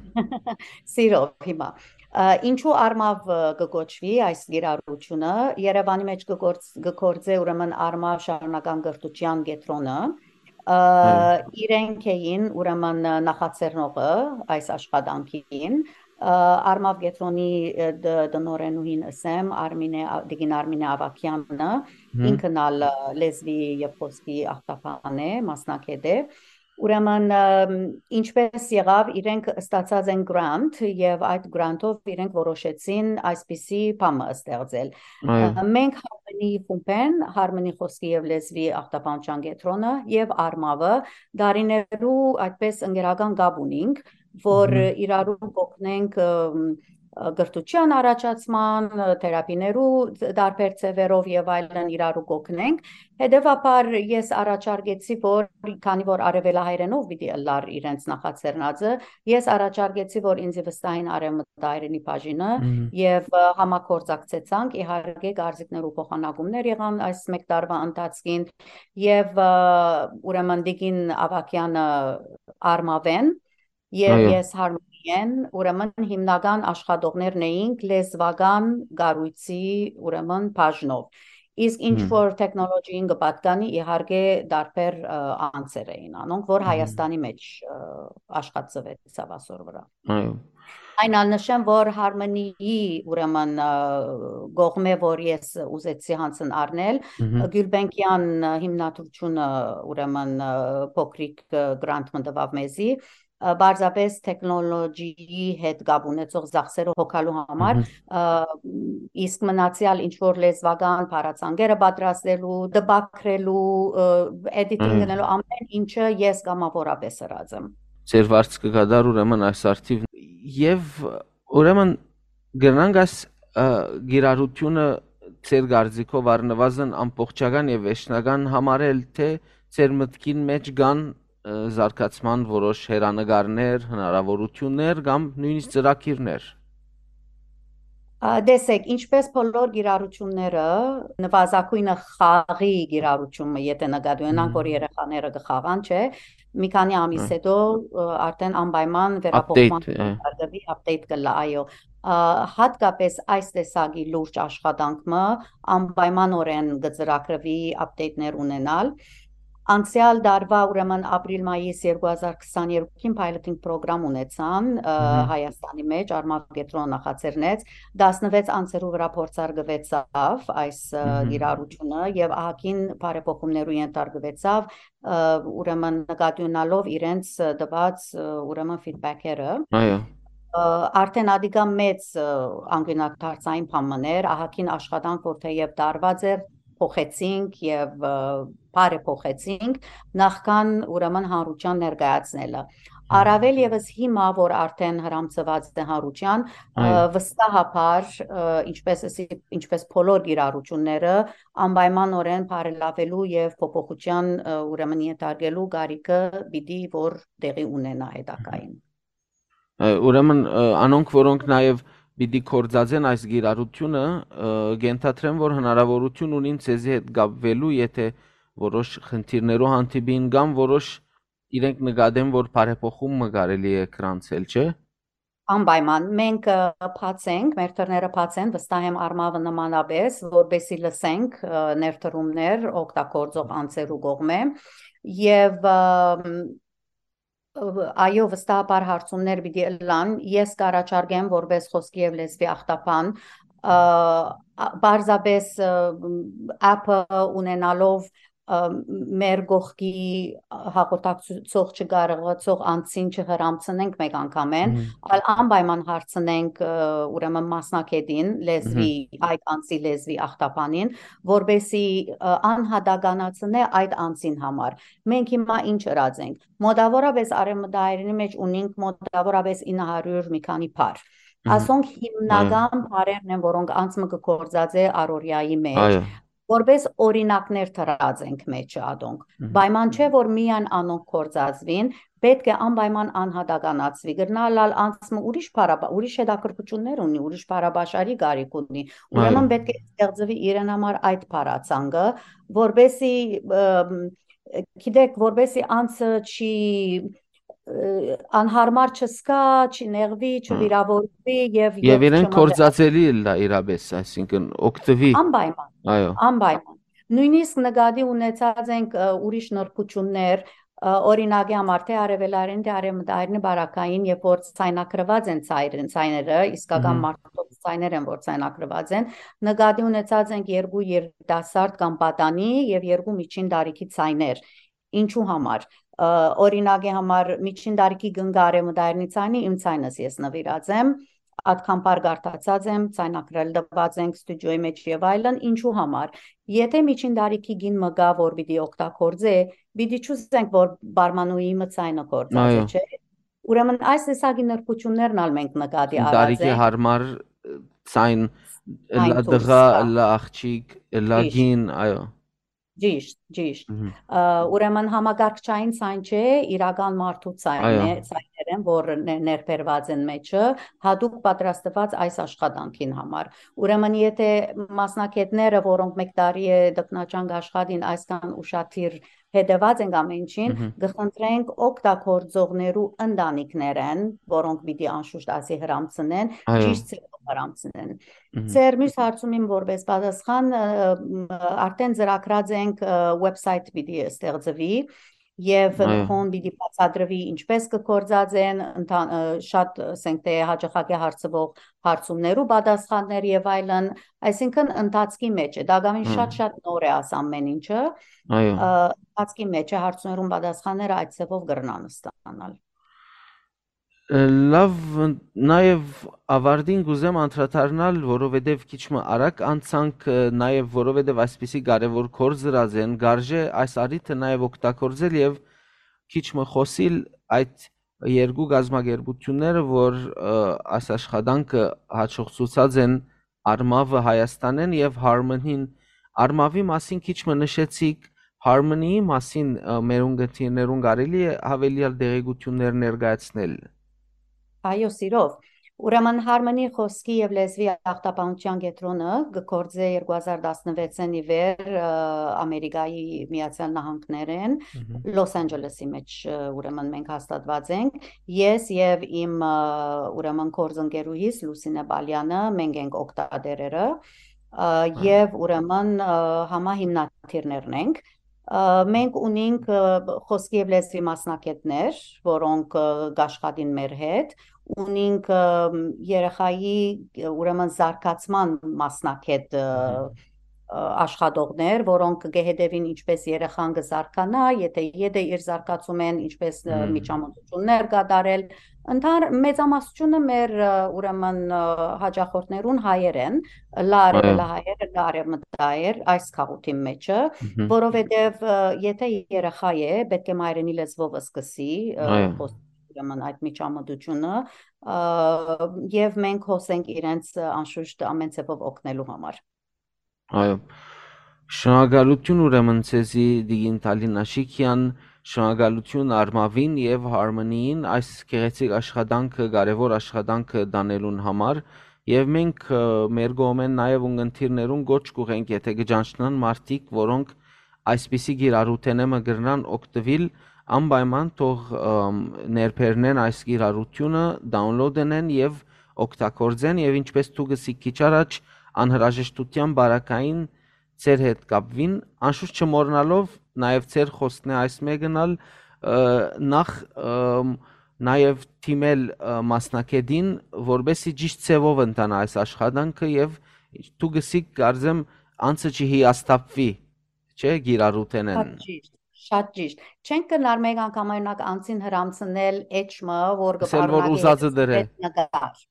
Սիրով հիմա։ Ա, ինչու Արմավ, ը, կը կոչվի այս կիրառությունը։ Երևանի մեջ կը գործ-, կը գործէ ուրեմն Արմավ շարունակական կրթության կեդրոնը։ Ա, Այո։ իրենք էին ուրեմն նախաձեռնողը այս աշխատանքին, Ա, Արմաւ կեդրոնի, ը, դ-, տնօրէնուհին ըսեմ, Արմինէ, ա, տիկին Արմինէ Ավագեանը, Հմ։ ինքն ալ, ը, լեզուի եւ խօսքի ախտաբան է, մասնագէտ է։ Ուրեմն, ը, ինչպէս եղաւ, իրենք ստացած են grant եւ այդ grant-ով իրենք որոշեցին այսպիսի բան մը ստեղծել։ Այո։ Ը, մենք Harmony խումբէն, Harmony խօսքի եւ լեզուի ախտաբանության կեդրոնը եւ Արմավը դարիներու այդպես ընկերական կապ ունինք, որ Մհմ։ իրարու կօգնենք, ը, ը, կրթության առաջացման, ը, թերապիներու տարբեր ձեւերով եւ այլն իրարու կօգնենք։ Հետեւաբար ես առաջարկեցի, որ քանի որ արեւելահայերէնով պիտի ըլլար իրենց նախաձեռնածը, ես առաջարկեցի, որ ինձի վստահին արեւմտահայերէնի բաժինը Մհմ։ եւ, ը, համագործակցեցանք, իհարկե, կարծիքներու փոխանակումներ եղան այս մեկ տարվա ընթացքին եւ, ը, ուրեմն տիկին Ավագեանը Արմավեն եւ Այո։ ես Harmony-ն, ուրեմն հիմնական աշխատողներն էինք լեզուական կառոյցի, ուրեմն բաժնով։ Իսկ ինչ Հմ։ որ տեխնոլոգիին կը պատկանի, իհարկե, տարբեր, ը, անձեր էին անոնք, որ Մհմ։ Հայաստանի մեջ, ը, աշխատծուեցաւ ասոր վրա։ Այո։ Այն ալ նշեմ, որ Harmony-ի, ուրեմն, ը, կողմէ, որ ես ուզեցի յանցն առնել, Մհմ։ Գիւլբենկեան հիմնադրութիւնը, ուրեմն, ը, փոքրիկ, ը, grant մը տուաւ մեզի, ը, պարզապէս տեխնոլոգիի հետ կապ ունեցող ծախսերը հոգալու համար, Մհմ։ ը, իսկ մնացեալ ինչ որ լեզուական բառացանկերը պատրաստելու, տպագրելու, ը, editing Այո։ գնելու ամեն ինչը ես կամավորապէս ըրած եմ։ Ձեր վարձքը կդար ուրեմն այս արդիվ։ Եւ ուրեմն կրնանք այս, ը, կիրառութիւնը ձեր կարծիքով առնուազն ամբողջական եւ վերջնական համարել, թէ ձեր մտքին մէջ կան, ը, զարգացման որոշ հեռանկարներ, հնարաւորութիւններ կամ նոյնիսկ ծրագիրներ։ Ա, տեսեք, ինչպես բոլոր կիրառությունները, նվազագոյնը խաղի կիրառությունը, եթե նկատի ունենանք, Մհմ։ որ երեխաները կը խաղան, չէ, մի քանի ամիս Հա։ հետո, ը, արդեն անպայման Update, վերափոխման ը։ կարգավի update կլա, այո։ Ա, հատկապես այս տեսակի լուրջ աշխատանք մը անպայմանօրէն կը ծրագրվի update-ներ ունենալ։ Անցեալ տարուա, ուրեմն ապրիլ-մայիս երկու հազար քսաներկուին piloting program ունեցան, ը, Մհմ։ Հայաստանի մեջ, Արմաւ կեդրոնը նախաձեռնեց, տասնվեց անձերու վրա փորձարկուեցաւ այս, ը, Մհմ։ կիրառութիւնը եւ ահագին բարեփոխումներու ենթարկուեցավ, ը, ուրեմն նկատի ունալով իրենց, ը, տուած, ը, ուրեմն feedback-երը։ Այո։ Ը, արդեն ադիկա մեծ, ը, անկիւնադարձային բան մըն էր, ահագին աշխատանք, որ թէեւ տարուած էր, փոխեցինք եւ, ը, բարեփոխեցինք, նախքան ուրեմն հանրութեան ներկայացնելը։ Հմ։ Առավել եւս հիմա, որ արդեն հրամցուած է հանրութեան, ը, Այո։ վստահաբար, ը, ինչպես ըսի-, ինչպես բոլոր կիրառությունները, անպայմանօրէն բարելավելու եւ փոփոխութեան, ը, ուրեմն ենթարկելու կարիքը պիտի որ տեղի ունենա հետագային։ Ը, ուրեմն, ը, անոնք, որոնք նաեւ պիտի գործածեն այս կիրառութիւնը, ը, կ'ենթադրեմ, որ հնարաւորութիւն ունին ձեզի հետ կապվելու, եթե որոշ խնդիրներու հանդիպին կամ որոշ իրենք նկատեն, որ բարեփոխում մը կարելի է գրանցել, չէ՞։ Անպայման, մենք, ը, բաց ենք, մեր դռները բաց են, վստահ եմ Արմավը նմանապես, որպեսզի լսենք, ը, ներդրումներ օգտագործող անձերու կողմէ։ Եւ, ը, ը, այո, վստահաբար հարցումներ պիտի ըլլան, ես կառաջարկեմ որպես խօսքի եւ լեզուի ախտաբան, ը, ա-, պարզապես, ը, app-ը ունենալով, ը, մեր կողքի հաղորդակցող չկարողացող անձին չհրամցնենք մեկ անգամէն, Մհմ։ այլ անպայման հարցնենք, ը, ուրեմն մասնագետին, լեզվի, Մհմ։ այդ անձի լեզվի ախտաբանին, որպեսզի, ը, անհատականացնէ այդ անձին համար։ Մենք հիմա ինչ ըրած ենք։ Մոտավորապես արեւմտահայերենի մեջ ունինք մոտավորապես ինը հարիւր մի քանի բառ։ Մհմ։ Ասոնք Այո։ հիմնական բառերն են, որոնք անձը կը գործածէ առօրյայի մեջ, Այո։ որպես օրինակներ դրած ենք մեջը ատոնք։ Մհմ։ Պայման չէ, որ միայն անոնք գործածուին, պետք է անպայման անհատականացուի։ Կրնալ ալ անձը ուրիշ բառապա-, ուրիշ հետաքրքրություններ ունի, ուրիշ բառապաշարի կարիք ունի։ Ուրեմն Այո։ պետք է ստեղծվի իրեն համար այդ բառացանկը, որպեսզի, ըմ, գիտեք, որպեսզի անձը չի, ը, անհարմար չզգա, չնեղուի, Հա։ չվիրավորվի եւ Եվ ետ իրեն չմղի։ գործածելի ըլլայ իրապես, այսինքն օգտուի։ Անպայման, Այո։ անպայման։ Նոյնիսկ նկատի ունեցած ենք, ը, ուրիշ նրբություններ, Ը, օրինակի համար, թէ արեւելայինի, թէ արեւմտայինի պարագային, երբ որ ցայնագրուած են ցայրեն, ցայները, իսկական Մհմ։ մարդոց ցայներ են, որ ցայնագրուած են, նկատի ունեցած ենք երկու երիտասարդ կամ պատանի եւ երկու միջին տարիքի ցայներ։ Ինչու համար։ Ը, օրինակի համար, միջին տարիքի կնքը արեւմտայինի ցայնի, իմ ցայնս ես նվիրած եմ, ատկան բար կարդացած եմ, ցայնագրել տուած ենք ստուդիոյի մեջ եւ այլն, ինչու համար։ Եթե միջին տարիքի կին մը կա, որ պիտի օգտագործէ, պիտի չուզենք, որ բարմանուհի մը ցայնը գործածէ, Այո։ չէ՞։ Ուրեմն այս տեսակի նրբություններն ալ մենք նկատի Այն արած տարիքի ենք։ Հարմար, ը, ցայն, Այն ըլլա դուս, տղա, հա։ Ըլլա աղջիկ, ըլլա Ճիշտ։ Կին, այո։ Ճիշտ, ճիշտ։ Մհմ։ Ը, ուրեմն համակարգչային ցայն չէ, իրական մարդու ցայնն Այո։ է, ցայներ են, որ ներ-, ներբերված են մեջը, հատուկ պատրաստված այս աշխատանքին համար։ Ուրեմն եթե մասնագետները, որոնք մեկ տարի է տքնաջանք աշխատին, այսքան ուշադիր հետեւած ենք ամեն ինչին, Մհմ։ կխնդրենք օգտագործողներու ընտանիքներէն, որոնք պիտի անշուշտ ասի հրամցնեն, Այո։ Ճիշտ ձևով հրամցնեն։ Մհմ։ Ձեր մյուս հարցումին որպես պատասխան, ը, մ, արդեն ծրագրած ենք, ը, website պիտի ստեղծվի եւ Այո։ Նկոն պիտի բացատրվի ինչպես կգործած են, ընթան-, ը, շատ, ասենք թե հաճախակի հարցվող հարցումներու պատասխաններ եւ այլն, այսինքն ընթացքի մեջ է, դակավին Հա։ շատ-շատ նոր է աս ամեն ինչը, Այո։ ը, ընթացքի մեջ է, հարցումներուն պատասխանները այդ ձևով կրնան ստանալ։ Ը, լավ, ն-, նաեւ ավարտին կուզեմ անդրադառնալ, որովհետեւ քիչ մը արագ անցանք, ը, նաեւ որովհետեւ այսպիսի կարեւոր գործ դրած են, գարժէ այս առիթը նաեւ օգտագործել եւ քիչ մը խօսիլ այդ երկու կազմակերպությունները, որ, ը, այս աշխատանքը հաջողցուցած են Արմավը Հայաստանէն եւ Harmony-ն։ Արմավի մասին քիչ մը նշեցիք, Harmony-ի մասին, ը, մեր ունգընտիրներուն կարելի է յաւելեալ տեղեկութիւններ ներկայացնել։ Այո, սիրով։ Ուրեմն Harmony խօսքի եւ լեզուի ախտաբանութեան կեդրոնը կը գործէ երկու հազար տասնվեցին ի վեր, ը, Ամերիկայի Միացյալ Նահանգներէն, Մհմ։ Լոս Անջելեսի մեջ, ը, ուրեմն մենք հաստատուած ենք։ Ես եւ իմ, ը, ուրեմն գործընկերուհիս Լուսինե Պալյանը, մենք ենք օգտատերերը, ը, Այո։ Եւ ուրեմն, ը, համահիմնադիրներն ենք։ Ը, մենք ունենք, ը, խօսքի եւ լեզուի մասնագետներ, որոնք, ը, կաշխատին մեր հետ, ունենք, ը, երեխայի, ը, ուրեմն զարգացման մասնագետ, ը, Մհմ։ ը, աշխատողներ, որոնք կը հետևին ինչպես երեխան կը զարգանայ, եթե եդը իր զարգացումէն, ինչպես, ը, Մհմ։ Միջամտություններ կատարել։ Ընդհան-, մեծամասնությունը մեր, ը, ուրեմն, ը, հաճախորդներուն հայեր են, լա Այո։ արևելահայեր, լա արևմտահայեր այս քաղուտին մեջը, Մհմ։ որովհետև, ը, եթե երեխա է, պետք է մայրենի լեզվով սկսի, ը, Այո։ խոս-, ուրեմն այդ միջամտությունը, ը, եւ մենք հոս ենք իրենց, ը, անշուշտ ամեն ձևով օգնելու համար։ Այո։ Շնորհակալություն ուրեմն ձեզի, Տիկին Թալին Աշիկյան, շնորհակալություն Արմավին եւ Harmony-ին այս գեղեցիկ աշխատանքը, կարեւոր աշխատանքը տանելուն համար, եւ մենք, ը, մեր կողմէն նաեւ ունգընտիրներուն կոչ կուղենք, եթե կը ճանչնան մարդիկ, որոնք այսպիսի կիրառութենէ մը կրնան օգտվել, անպայման թող, ըմ, ներբեռնեն այս կիրառությունը, download ընեն եւ օգտագործեն, եւ ինչպես դուք ըսիք քիչ առաջ, անհրաժեշտության բարակային ձեր հետ կապվին, անշուշտ չմոռնալով նաեւ ձեր խոսքն է այս մեկն ալ, ը, նախ, ըմ, նաեւ թիմել, ը, մասնագետին, որպեսզի ճիշտ ձևով ընթանա այս աշխատանքը, եւ դուք ըսիք, կարծեմ, անցը չհիասթափվի, չէ՞, կիրառութենեն։ Շատ ճիշտ, շատ ճիշտ։ Չենք կրնար մեկ անգամ, օրինակ, անցին հրամցնել էջ մը, որ կը Ասել, որ պարունակի ուզածը դրե։ Այդ նկար։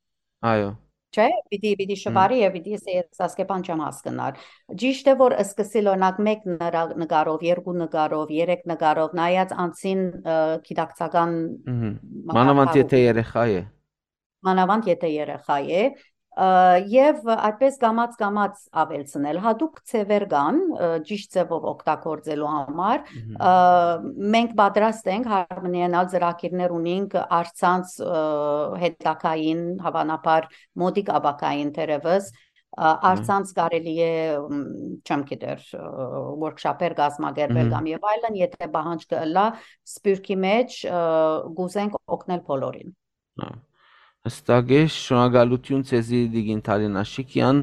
Այո։ Չէ՞, պիտի, պիտի Հմ։ շվարի եւ պիտի ասէ, «Ես Ասկեփան չեմ հասկնար»։ Ճիշտ է, որ սկսիլ, օրինակ, մեկ նրա-, նկարով, երկու նկարով, երեք նկարով, նայած անցին, ը, գիտակցական Մհմ։ մակարդակով։ Մանավանդ եթե երեխա է։ Մանավանդ եթե երեխայ է, ը, եւ այդպես կամաց-կամաց աւելցնել։ Հատուկ ձեւեր կան, ը, ճիշտ ձեւով օգտագործելու համար։ Մհմ։ Ը, մենք պատրաստ ենք, Harmony-ն ալ ծրագիրներ ունենք, առցանց, ը, հետագային, հավանաբար մոտիկ ապագային թերեւս, ը, Մհմ։ առցանց կարելի է, մ, չեմ գիտեր, ը, workshop-եր կազմակերպել Մհմ։ կամ եւ այլն, եթե պահանջ կը ըլլայ Սփիւռքի մեջ, ը, կուզենք օգնել բոլորին։ Հա, հստակ է, շնորհակալություն ձեզի, Տիկին Թալին Աշիկյան,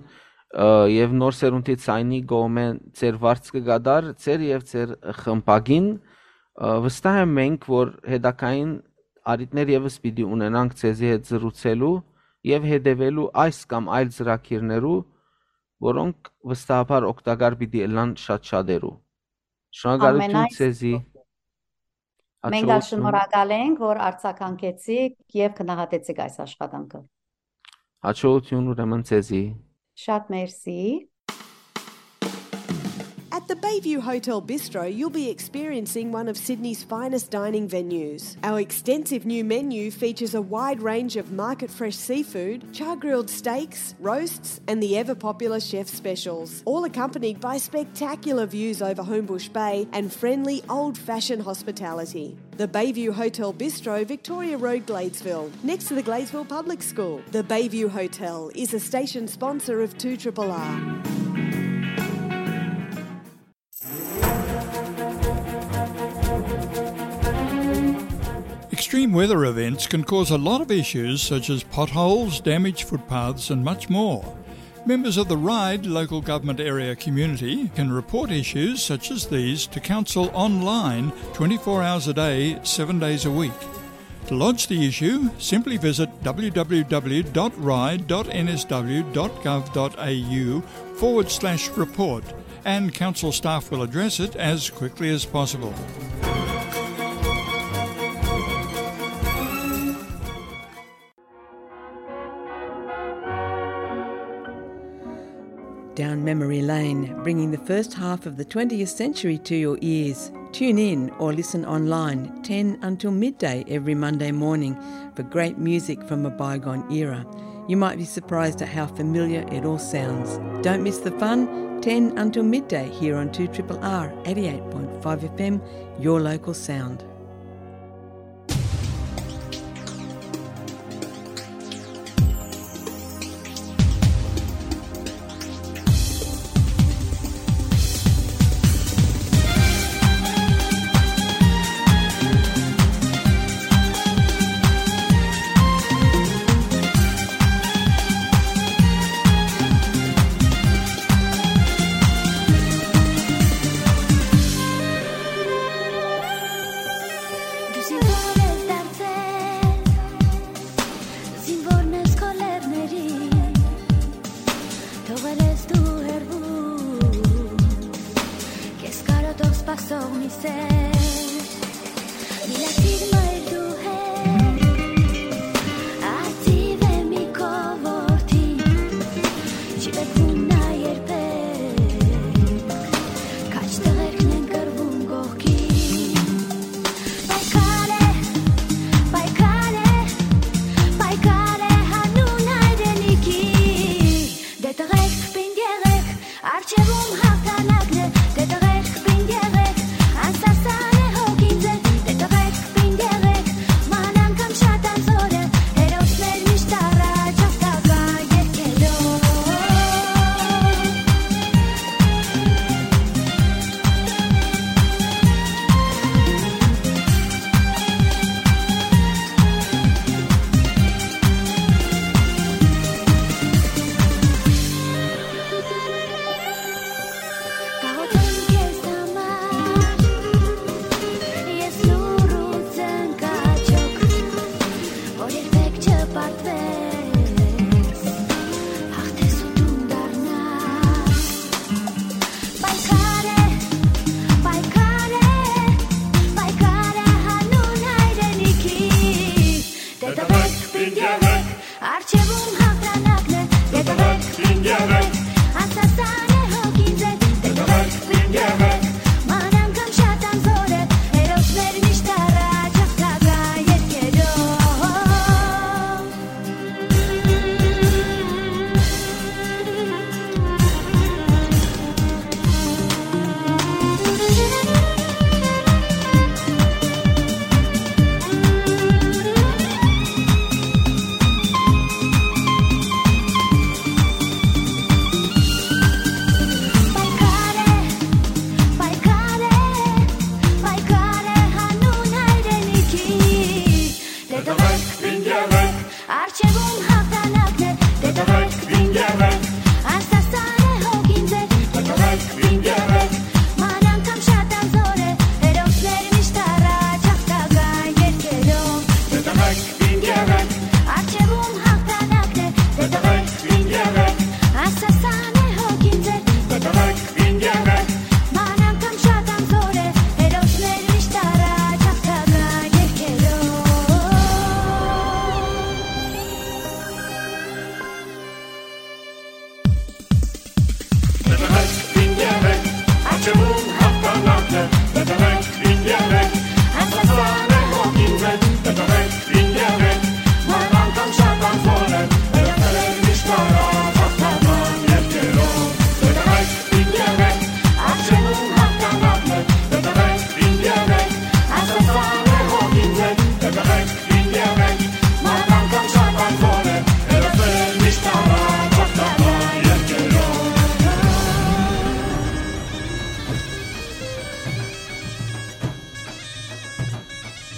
ը, եւ Նոր Սերունդի Ցայնի կողմէ ձեր վարձքը կդար, ձեր եւ ձեր խմբագին, Ը, վստահ եմ մենք, որ հետագային առիթներ ևս պիտի ունենանք ձեզի հետ զրուցելու եւ հետեւելու այս կամ այլ ծրագիրներու, որոնք վստահաբար օգտակար պիտի ըլլան շատ շատերու։ Շնորհակալություն Ամենայն ձեզի։ Մենք ալ Հաջողություն։ շնորհակալ ենք, որ արձագանքեցիք եւ գնահատեցիք այս աշխատանքը։ Հաջողություն ուրեմն ձեզի։ Շատ մերսի։ At the Bayview Hotel Bistro, you'll be experiencing one of Sydney's finest dining venues. Our extensive new menu features a wide range of market fresh seafood, char grilled steaks, roasts, and the ever popular chef specials, all accompanied by spectacular views over Homebush Bay and friendly old fashioned hospitality. The Bayview Hotel Bistro, Victoria Road, Gladesville, next to the Gladesville Public School. The Bayview Hotel is a station sponsor of two triple R. Extreme weather events can cause a lot of issues such as potholes, damaged footpaths, and much more. Members of the RIDE local government area community can report issues such as these to council online twenty-four hours a day, seven days a week. To lodge the issue, simply visit w w w dot ride dot n s w dot gov dot a u forward slash report, and council staff will address it as quickly as possible. Down memory lane, bringing the first half of the twentieth century to your ears. Tune in or listen online ten until midday every Monday morning for great music from a bygone era. You might be surprised at how familiar it all sounds. Don't miss the fun, ten until midday here on two triple R eighty-eight point five F M, your local sound. Դու զինվոր ես դարձել, զինվոր մեզ քո լեռների, թողել ես դու հեռվում, քեզ կարոտով սպասող մի սեր, միլիցիր մայր դու հետ, արծիվ է մի քո որդին, չի պեկվում նա երբեք, քաջ տղերքն են կռվում կողքին։ Պայքար է, պայքար է, պայքար է հանուն հայրենիքի, դե տղերք պինդ եղեք, առջևում հաղթանակն է, դե տղերք պինդ եղեք, անսասան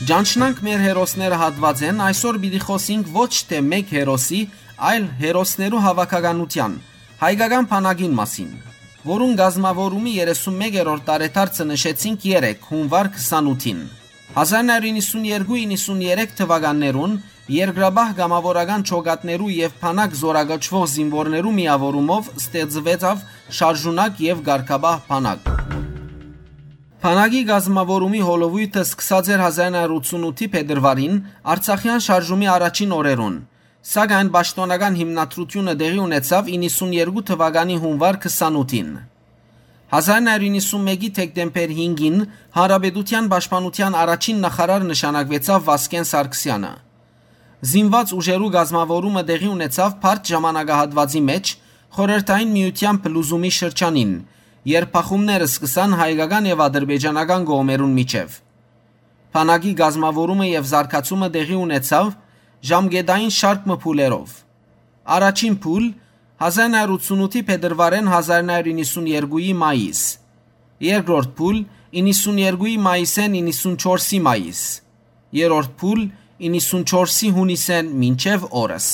Ճանչնանք մեր հերոսները հատուածէն, այսօր պիտի խօսինք ոչ թէ մէկ հերոսի, այլ հերոսներու հաւաքականութեան, հայկական բանակին մասին, որուն կազմաւորումի երեսունմեկերորդ տարեդարձը նշեցինք երեկ, հունուար քսանութին։ Հազար նոյ հարիւր իննսուններկու իննսուններեք թուականներուն երկրաբահ կամաւորական ջոկատներու եւ բանակ զօրակոչուող զինուորներու միաւորումով ստեղծուեցաւ շարժունակ եւ կարգապահ բանակ։ Բանակի կազմաւորումի հոլովոյթը սկսած էր հազար նոյ հարիւր ութսունութի փետրուարին, Արցախեան շարժումի առաջին օրերուն, սակայն պաշտօնական հիմնադրութիւնը տեղի ունեցաւ իննսուններկու թուականի հունուար քսանութին։ Հազար նոյ հարիւր իննսունմեկի դեկտեմբեր հինգին Հանրապետութեան պաշտպանութեան առաջին նախարար նշանակուեցաւ Վազգէն Սարգսեանը։ Զինուած ուժերու կազմաւորումը տեղի ունեցաւ բարդ ժամանակահատուածի մէջ, Խորհրդային Միութեան փլուզումի շրջանին, երբ բախումները սկսան հայկական եւ ադրբեջանական կողմերուն միջեւ։ Բանակի կազմաւորումը եւ զարգացումը տեղի ունեցաւ ժամկետային շարք մը փուլերով։ Առաջին փուլ՝ հազար նոյ հարիւր ութսունութի փետրուարէն հազար նոյ հարիւր իննսուններկուի մայիս։ Երկրորդ փուլ՝ իննսուններկուի մայիսէն իննսունչորսի մայիս։ Երրորդ փուլ՝ իննսունչորսի յունիսէն մինչեւ օրս։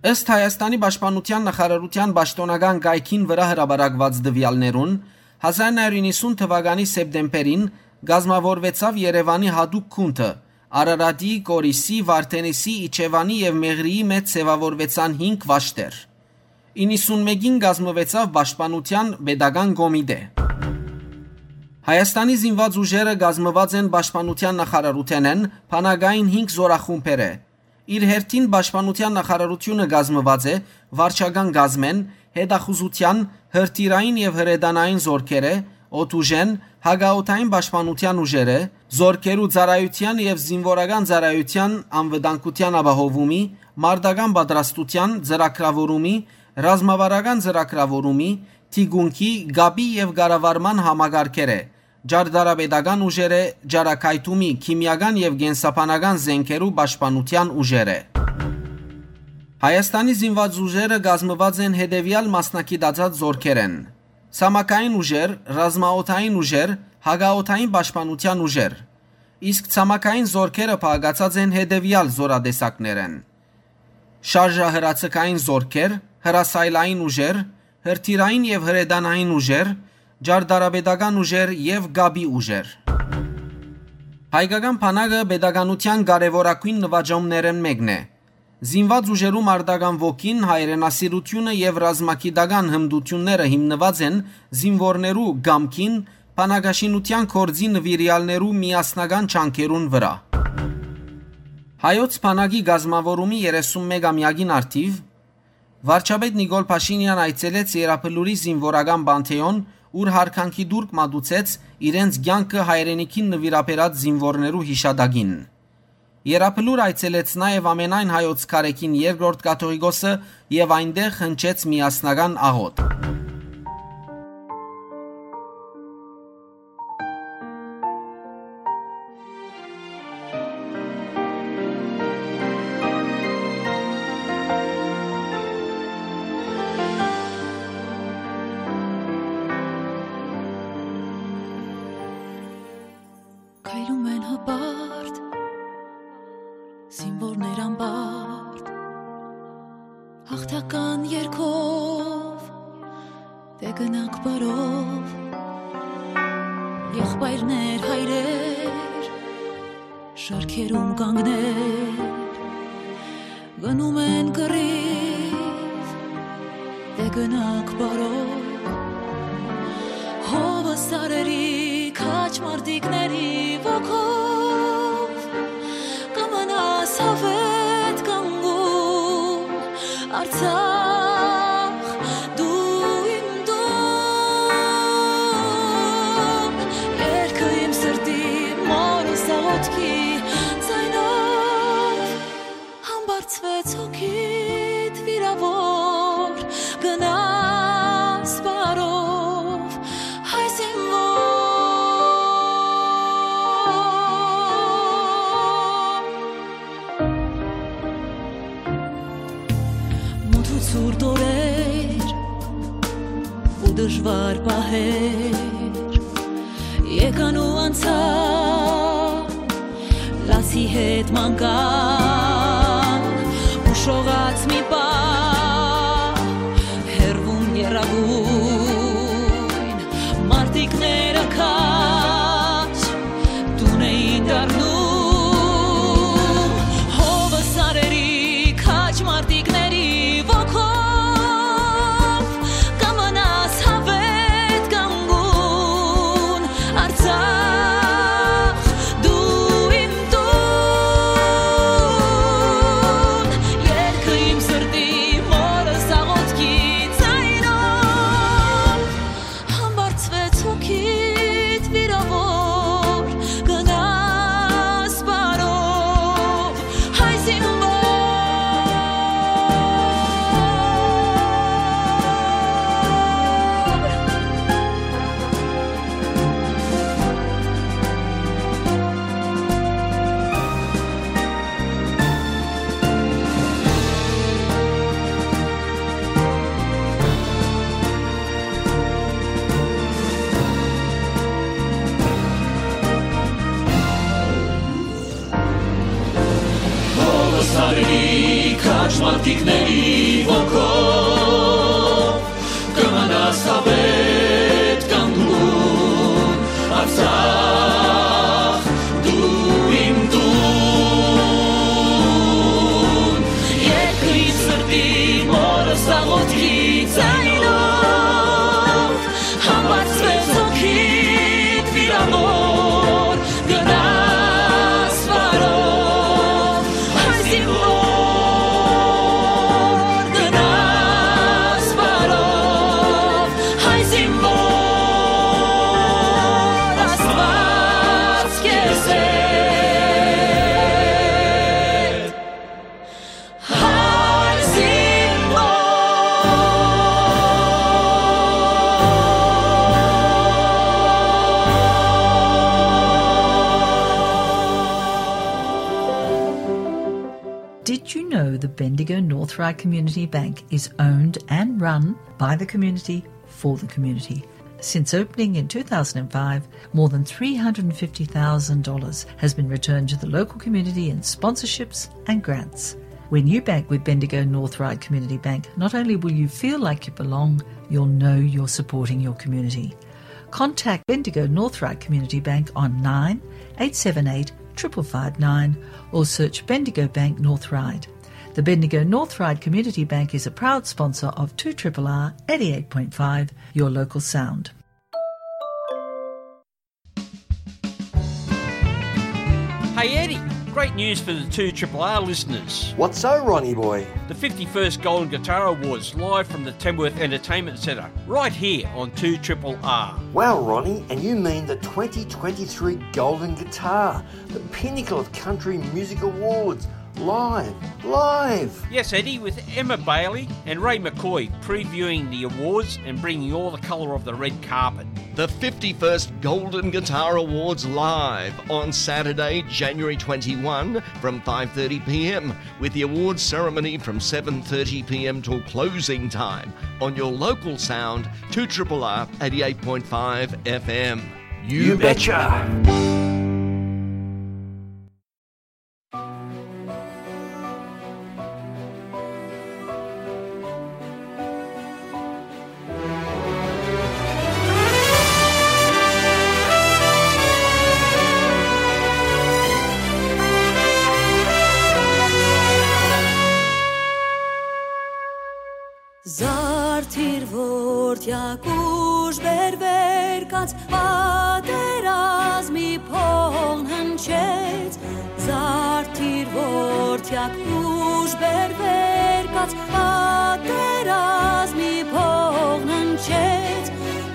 Ըստ Հայաստանի պաշտպանութեան նախարարութեան պաշտօնական կայքին վրայ հրապարակուած տուեալներուն, հազար նոյ հարիւր իննսուն թուականի սեպտեմբերին կազմաւորուեցաւ Երեւանի յատուկ գունդը, Արարատի, Կորիսի, Վարդենիսի, Իջեւանի եւ Մեղրիի մէջ ձեւաւորուեցան հինգ վաշտեր։ Իննսունմէկին կազմուեցաւ Պաշտպանութեան պետական կոմիտէ։ Հայաստանի զինուած ուժերը կազմուած են պաշտպանութեան նախարարութենէն բանակային հինգ զօրախումբերէ։ Իր հերթին պաշտպանութեան նախարարութիւնը կազմուած է վարչական կազմէն, հետախուզութեան, հրթիռային եւ հրետանային զօրքերէ, օդուժէն, հակաօդային պաշտպանութեան ուժերէ, զօրքերու ծառայութեան եւ զինուորական ծառայութեան անվտանգութեան ապահովումի, մարտական պատրաստութեան ծրագրաւորումի, ռազմավարական ծրագրաւորումի, թիկունքի, կապի եւ կառավարման համակարգերէ, ճարտարապետական ուժերէ, ճառագայթումի, քիմիական եւ կենսաբանական զէնքերու պաշտպանութեան ուժերէ։ Հայաստանի զինուած ուժերը կազմուած են հետեւեալ մասնագիտացած զօրքերէն. ցամաքային ուժեր, ռազմաօդային ուժեր, հակաօդային պաշտպանութեան ուժեր, իսկ ցամաքային զօրքերը բաղկացած են հետեւեալ զօրատեսակներէն. շարժահրաձգային զօրքեր, հրասայլային ուժեր, հրթիռային եւ հրետանային ուժեր, ճարտարապետական ուժեր եւ կապի ուժեր։ Հայկական բանակը պետականութեան կարեւորագոյն նուաճումներէն մէկն է։ Զինուած ուժերու մարտական ոգին, հայրենասիրութիւնը եւ ռազմագիտական հմտութիւնները հիմնուած են զինուորներու կամքին, բանակաշինութեան գործի նուիրեալներու միասնական ջանքերուն վրայ։ Հայոց բանակի կազմաւորումի երեսունմեկ ամեակին առթիւ վարչապետ Նիկոլ Փաշինեան այցելեց Եռաբլուրի զինուորական պանթէոն, ուր յարգանքի տուրք մատուցեց իրենց կեանքը հայրենիքին նուիրաբերած զինուորներու յիշատակին։ Եռաբլուր այցելեց նաեւ ամենայն հայոց քարէքին երկրորդ կաթողիկոսը եւ այնտեղ հնչեց միասնական աղօթք։ Քայլում են հպարտ, զինվորներ անպարտ, հաղթական երգով, դե գնանք բարով, եղբայրներ, հայրեր, շարքերում կանգներ, գնում են կռիվ, դե գնանք բարով, հովը սարերի քաջ մարտիկների ոգով, կմնաս հավետ կանգուն, Արցախ, դու իմ դու, երկը իմ սրտի, մորս աղոթքի ձայնով, համբարձվեց հոգիդ վիրավոր, գնաս բարով, հայ զինվոր։ Մութ ու ցուրտ օրեր ու դժվար պահեր եկան ու անցան, Ի հետ մանկան ու շողած մի պահ, հեռվում եռագույն մարտիկները քաջ տուն էին դառնում, հովը սարերի քաջ մարտիկների ոգով կը մնաս հավետ կանգուն, Արցախ, դու իմ տուն, երգը իմ սրտի մորս աղոթքի ձայնով, համբարձվեց հոգիդ վիրաւոր, գնաս բարով, հայ զինվոր։ Հովը սարերի քաջ մարտիկների ոգով կը մնաս հավետ կանգուն, Արցախ, դու իմ տուն, երկրի սրտի մորս աղոթքի ձայնով, համբարձվեց հոգիդ վիրամոր, գնաս բարով, հայ զինվոր, գնաս բարով, հայ զինվոր, Աստված քեզ հետ, հայ զինվոր։ Did you know the Bendigo North Ryde Community Bank is owned and run by the community for the community? Since opening in two thousand and five, more than three hundred and fifty thousand dollars has been returned to the local community in sponsorships and grants. When you bank with Bendigo North Ryde Community Bank, not only will you feel like you belong, you'll know you're supporting your community. Contact Bendigo North Ryde Community Bank on nine eight seven eight triple five nine or search Bendigo Bank North Ryde. The Bendigo North Ryde Community Bank is a proud sponsor of two triple R eighty-eight point five, your local sound. Hey Eddie, great news for the two triple R listeners. What's so, Ronnie boy? The fifty-first Golden Guitar Awards live from the Tamworth Entertainment Centre, right here on two triple R. Wow, Ronnie, and you mean the twenty twenty-three Golden Guitar, the pinnacle of country music awards, live, live! Yes, Eddie, with Emma Bailey and Ray McCoy previewing the awards and bringing all the colour of the red carpet. The fifty-first Golden Guitar Awards live on Saturday, January twenty-one from five thirty p m, with the awards ceremony from seven thirty p m till closing time on your local sound, two triple R eighty-eight point five F M. You betcha. Զարդիր որդեակ ուժ բերվեր կաց, պատերազմի փողն հնչեց։ Զարդիր որդեակ ուժ բերվեր կաց, պատերազմի փողն հնչեց։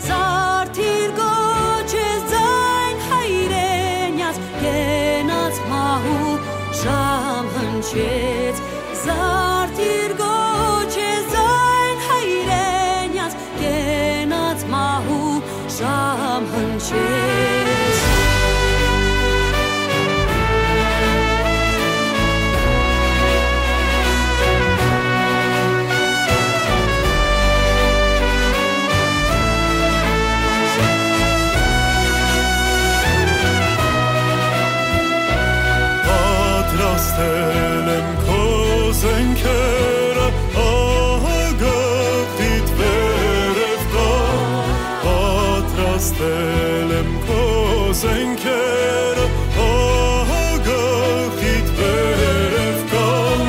Զարդիր կոչես ձայն հայրենյաց, կենաց մահու ժամ հնչեց։ Զարդիր կոչես ձայն հայրենյաց, կենաց մահու ժամ հնչեց։ Քո զէնքերը ահագաղիդ վերեւ կան,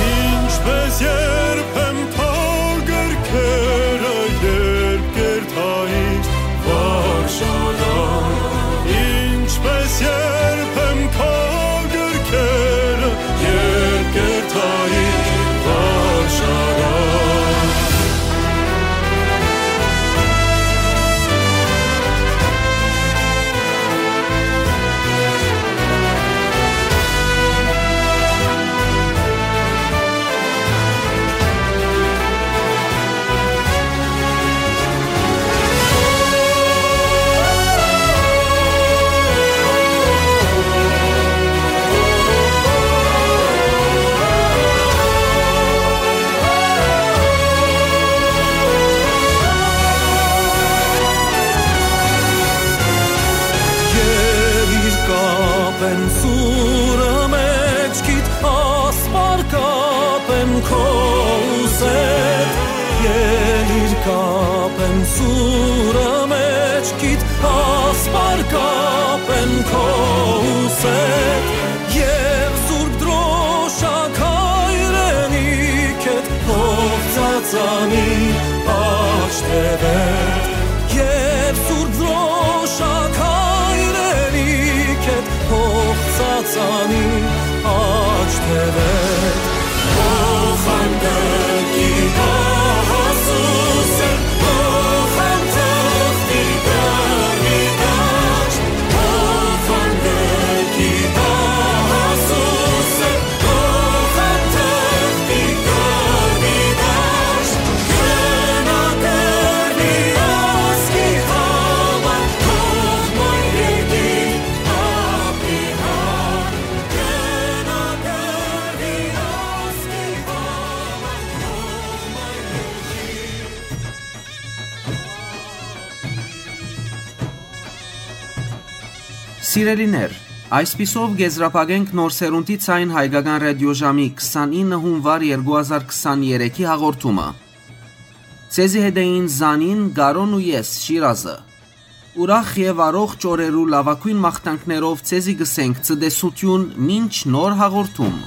ինչպէս երբեմն քո գրքերը, երբ կ'երթայ վարժարան, ինչպէս երբեմն քո գրքերը, երբ կ'երթայ վարժարան։ Ելիր կապեմ սուրը մէջքիդ, ասպար կապեմ քո ուսեդ։ Ելիր կապեմ սուրը մէջքիդ, ասպար կապեմ քո ուսեդ։ Եւ Սուրբ Դրոշակ հայրենիքդ, հող ծածանի աջ թեւեդ։ Եւ Սուրբ Դրոշակ հայրենիքդ, հող ծածանի աջ թեւեդ։ Հող հանդգի դահասուսը, հող հանդգի դարմի դաշտ, հող հանդգի դահասուսը, Սիրելիներ, այսպիսով կ'եզրափակենք Նոր Սերունդի Ձայն հայկական ռադիոժամի քսանինը հունուար երկու հազար քսաներեքի հաղորդումը։ Ձեզի հետ էին Զանին, Կարոն ու ես, Շիրազը։ Ուրախ եւ առողջ օրերու լաւագոյն մաղթանքներով ձեզի կ'ըսենք ցտեսութիւն մինչ նոր հաղորդում։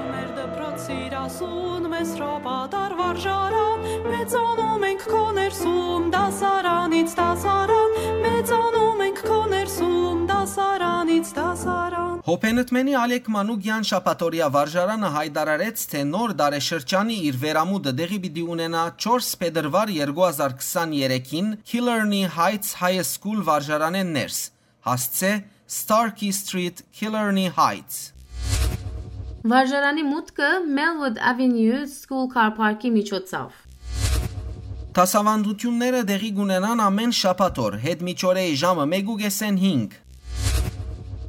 Մեր դպրոց սիրասուն, մեծ հրապատար վարժարան, մեծանում ենք քո ներսում, դասարանից դասարան։ Հոբենտմենի Ալեք Մանուկեան շաբաթօրեայ վարժարանը յայտարարեց, թէ նոր տարեշրջանի իր վերամուտը տեղի պիտի ունենայ չորս փետրուար երկու հազար քսաներեքին Killarney Heights High School վարժարանէն ներս, հասցէ Starkey Street, Killarney Heights։ Վարժարանի մուտքը Melwood Avenue School Car Park-ի միջոցով։ Դասաւանդութիւնները տեղի կ'ունենան ամէն շաբաթօր, յետ միջօրեի ժամը մէկ ու կէսէն հինգ։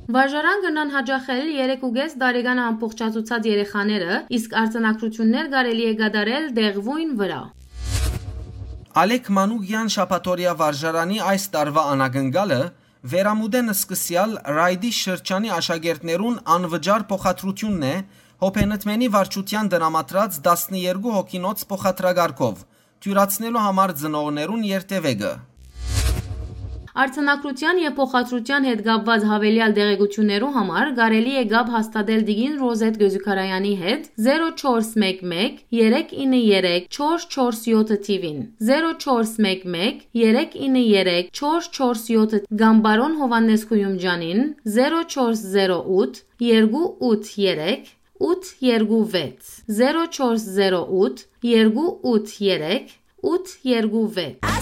Վարժարան կրնան յաճախել երեք ու կէս տարեկան ամբողջացուցած երեխաները, իսկ արձանագրութիւններ կարելի է կատարել տեղւոյն վրայ։ Ալեք Մանուկեան շաբաթօրեայ վարժարանի այս տարուայ անակնկալը վերամուտէն սկսեալ Ռայդի շրջանի աշակերտներուն անվճար փոխադրութիւնն է Հոբենտմենի վարչութեան տրամադրած տասներկու հոգինոց փոխադրակարգով, դիւրացնելու համար ծնողներուն երթեւեկը։ Արձանագրութեան եւ փոխադրութեան հետ կապուած յաւելեալ տեղեկութիւններու համար կարելի է կապ հաստատել տիկին Ռոզետ Գոզուքարեանի հետ, զերո չորս մէկ մէկ, երեք ինը երեք, չորս չորս յոթ թիւին, զերո չորս մէկ մէկ, երեք ինը երեք, չորս չորս յոթ, կամ պարոն Յովհաննէս Գոյումջանին, զերո չորս զերո ութ, երկու ութ երեք, ութ երկու վեց, զերո չորս զերո ութ, երկու ութ երեք, ութ երկու վեց։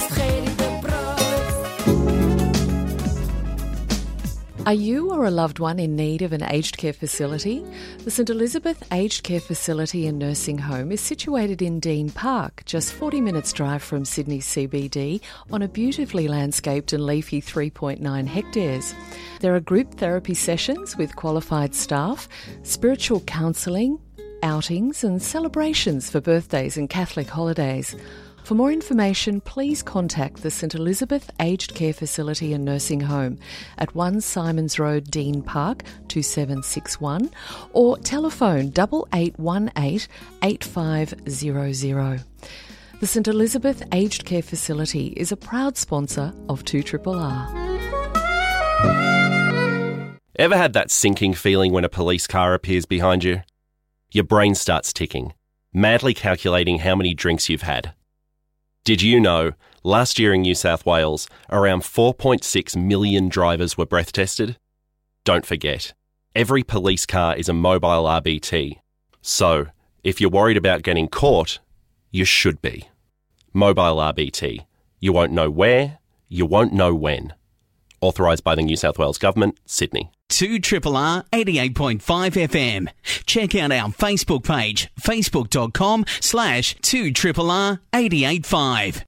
Are you or a loved one in need of an aged care facility? The St Elizabeth Aged Care Facility and Nursing Home is situated in Dean Park, just forty minutes' drive from Sydney C B D, on a beautifully landscaped and leafy three point nine hectares. There are group therapy sessions with qualified staff, spiritual counselling, outings, and celebrations for birthdays and Catholic holidays. For more information, please contact the St Elizabeth Aged Care Facility and Nursing Home at one Symonds Road, Dean Park, two seven six one, or telephone double eight one eight, eight five zero zero. The St Elizabeth Aged Care Facility is a proud sponsor of two triple R. Ever had that sinking feeling when a police car appears behind you? Your brain starts ticking, madly calculating how many drinks you've had. Did you know, last year in New South Wales, around four point six million drivers were breath tested? Don't forget, every police car is a mobile R B T. So, if you're worried about getting caught, you should be. Mobile R B T. You won't know where, you won't know when. Authorised by the New South Wales Government, Sydney. Two triple R eighty-eight point five F M. Check out our Facebook page, facebook dot com slash two triple R eight eight five.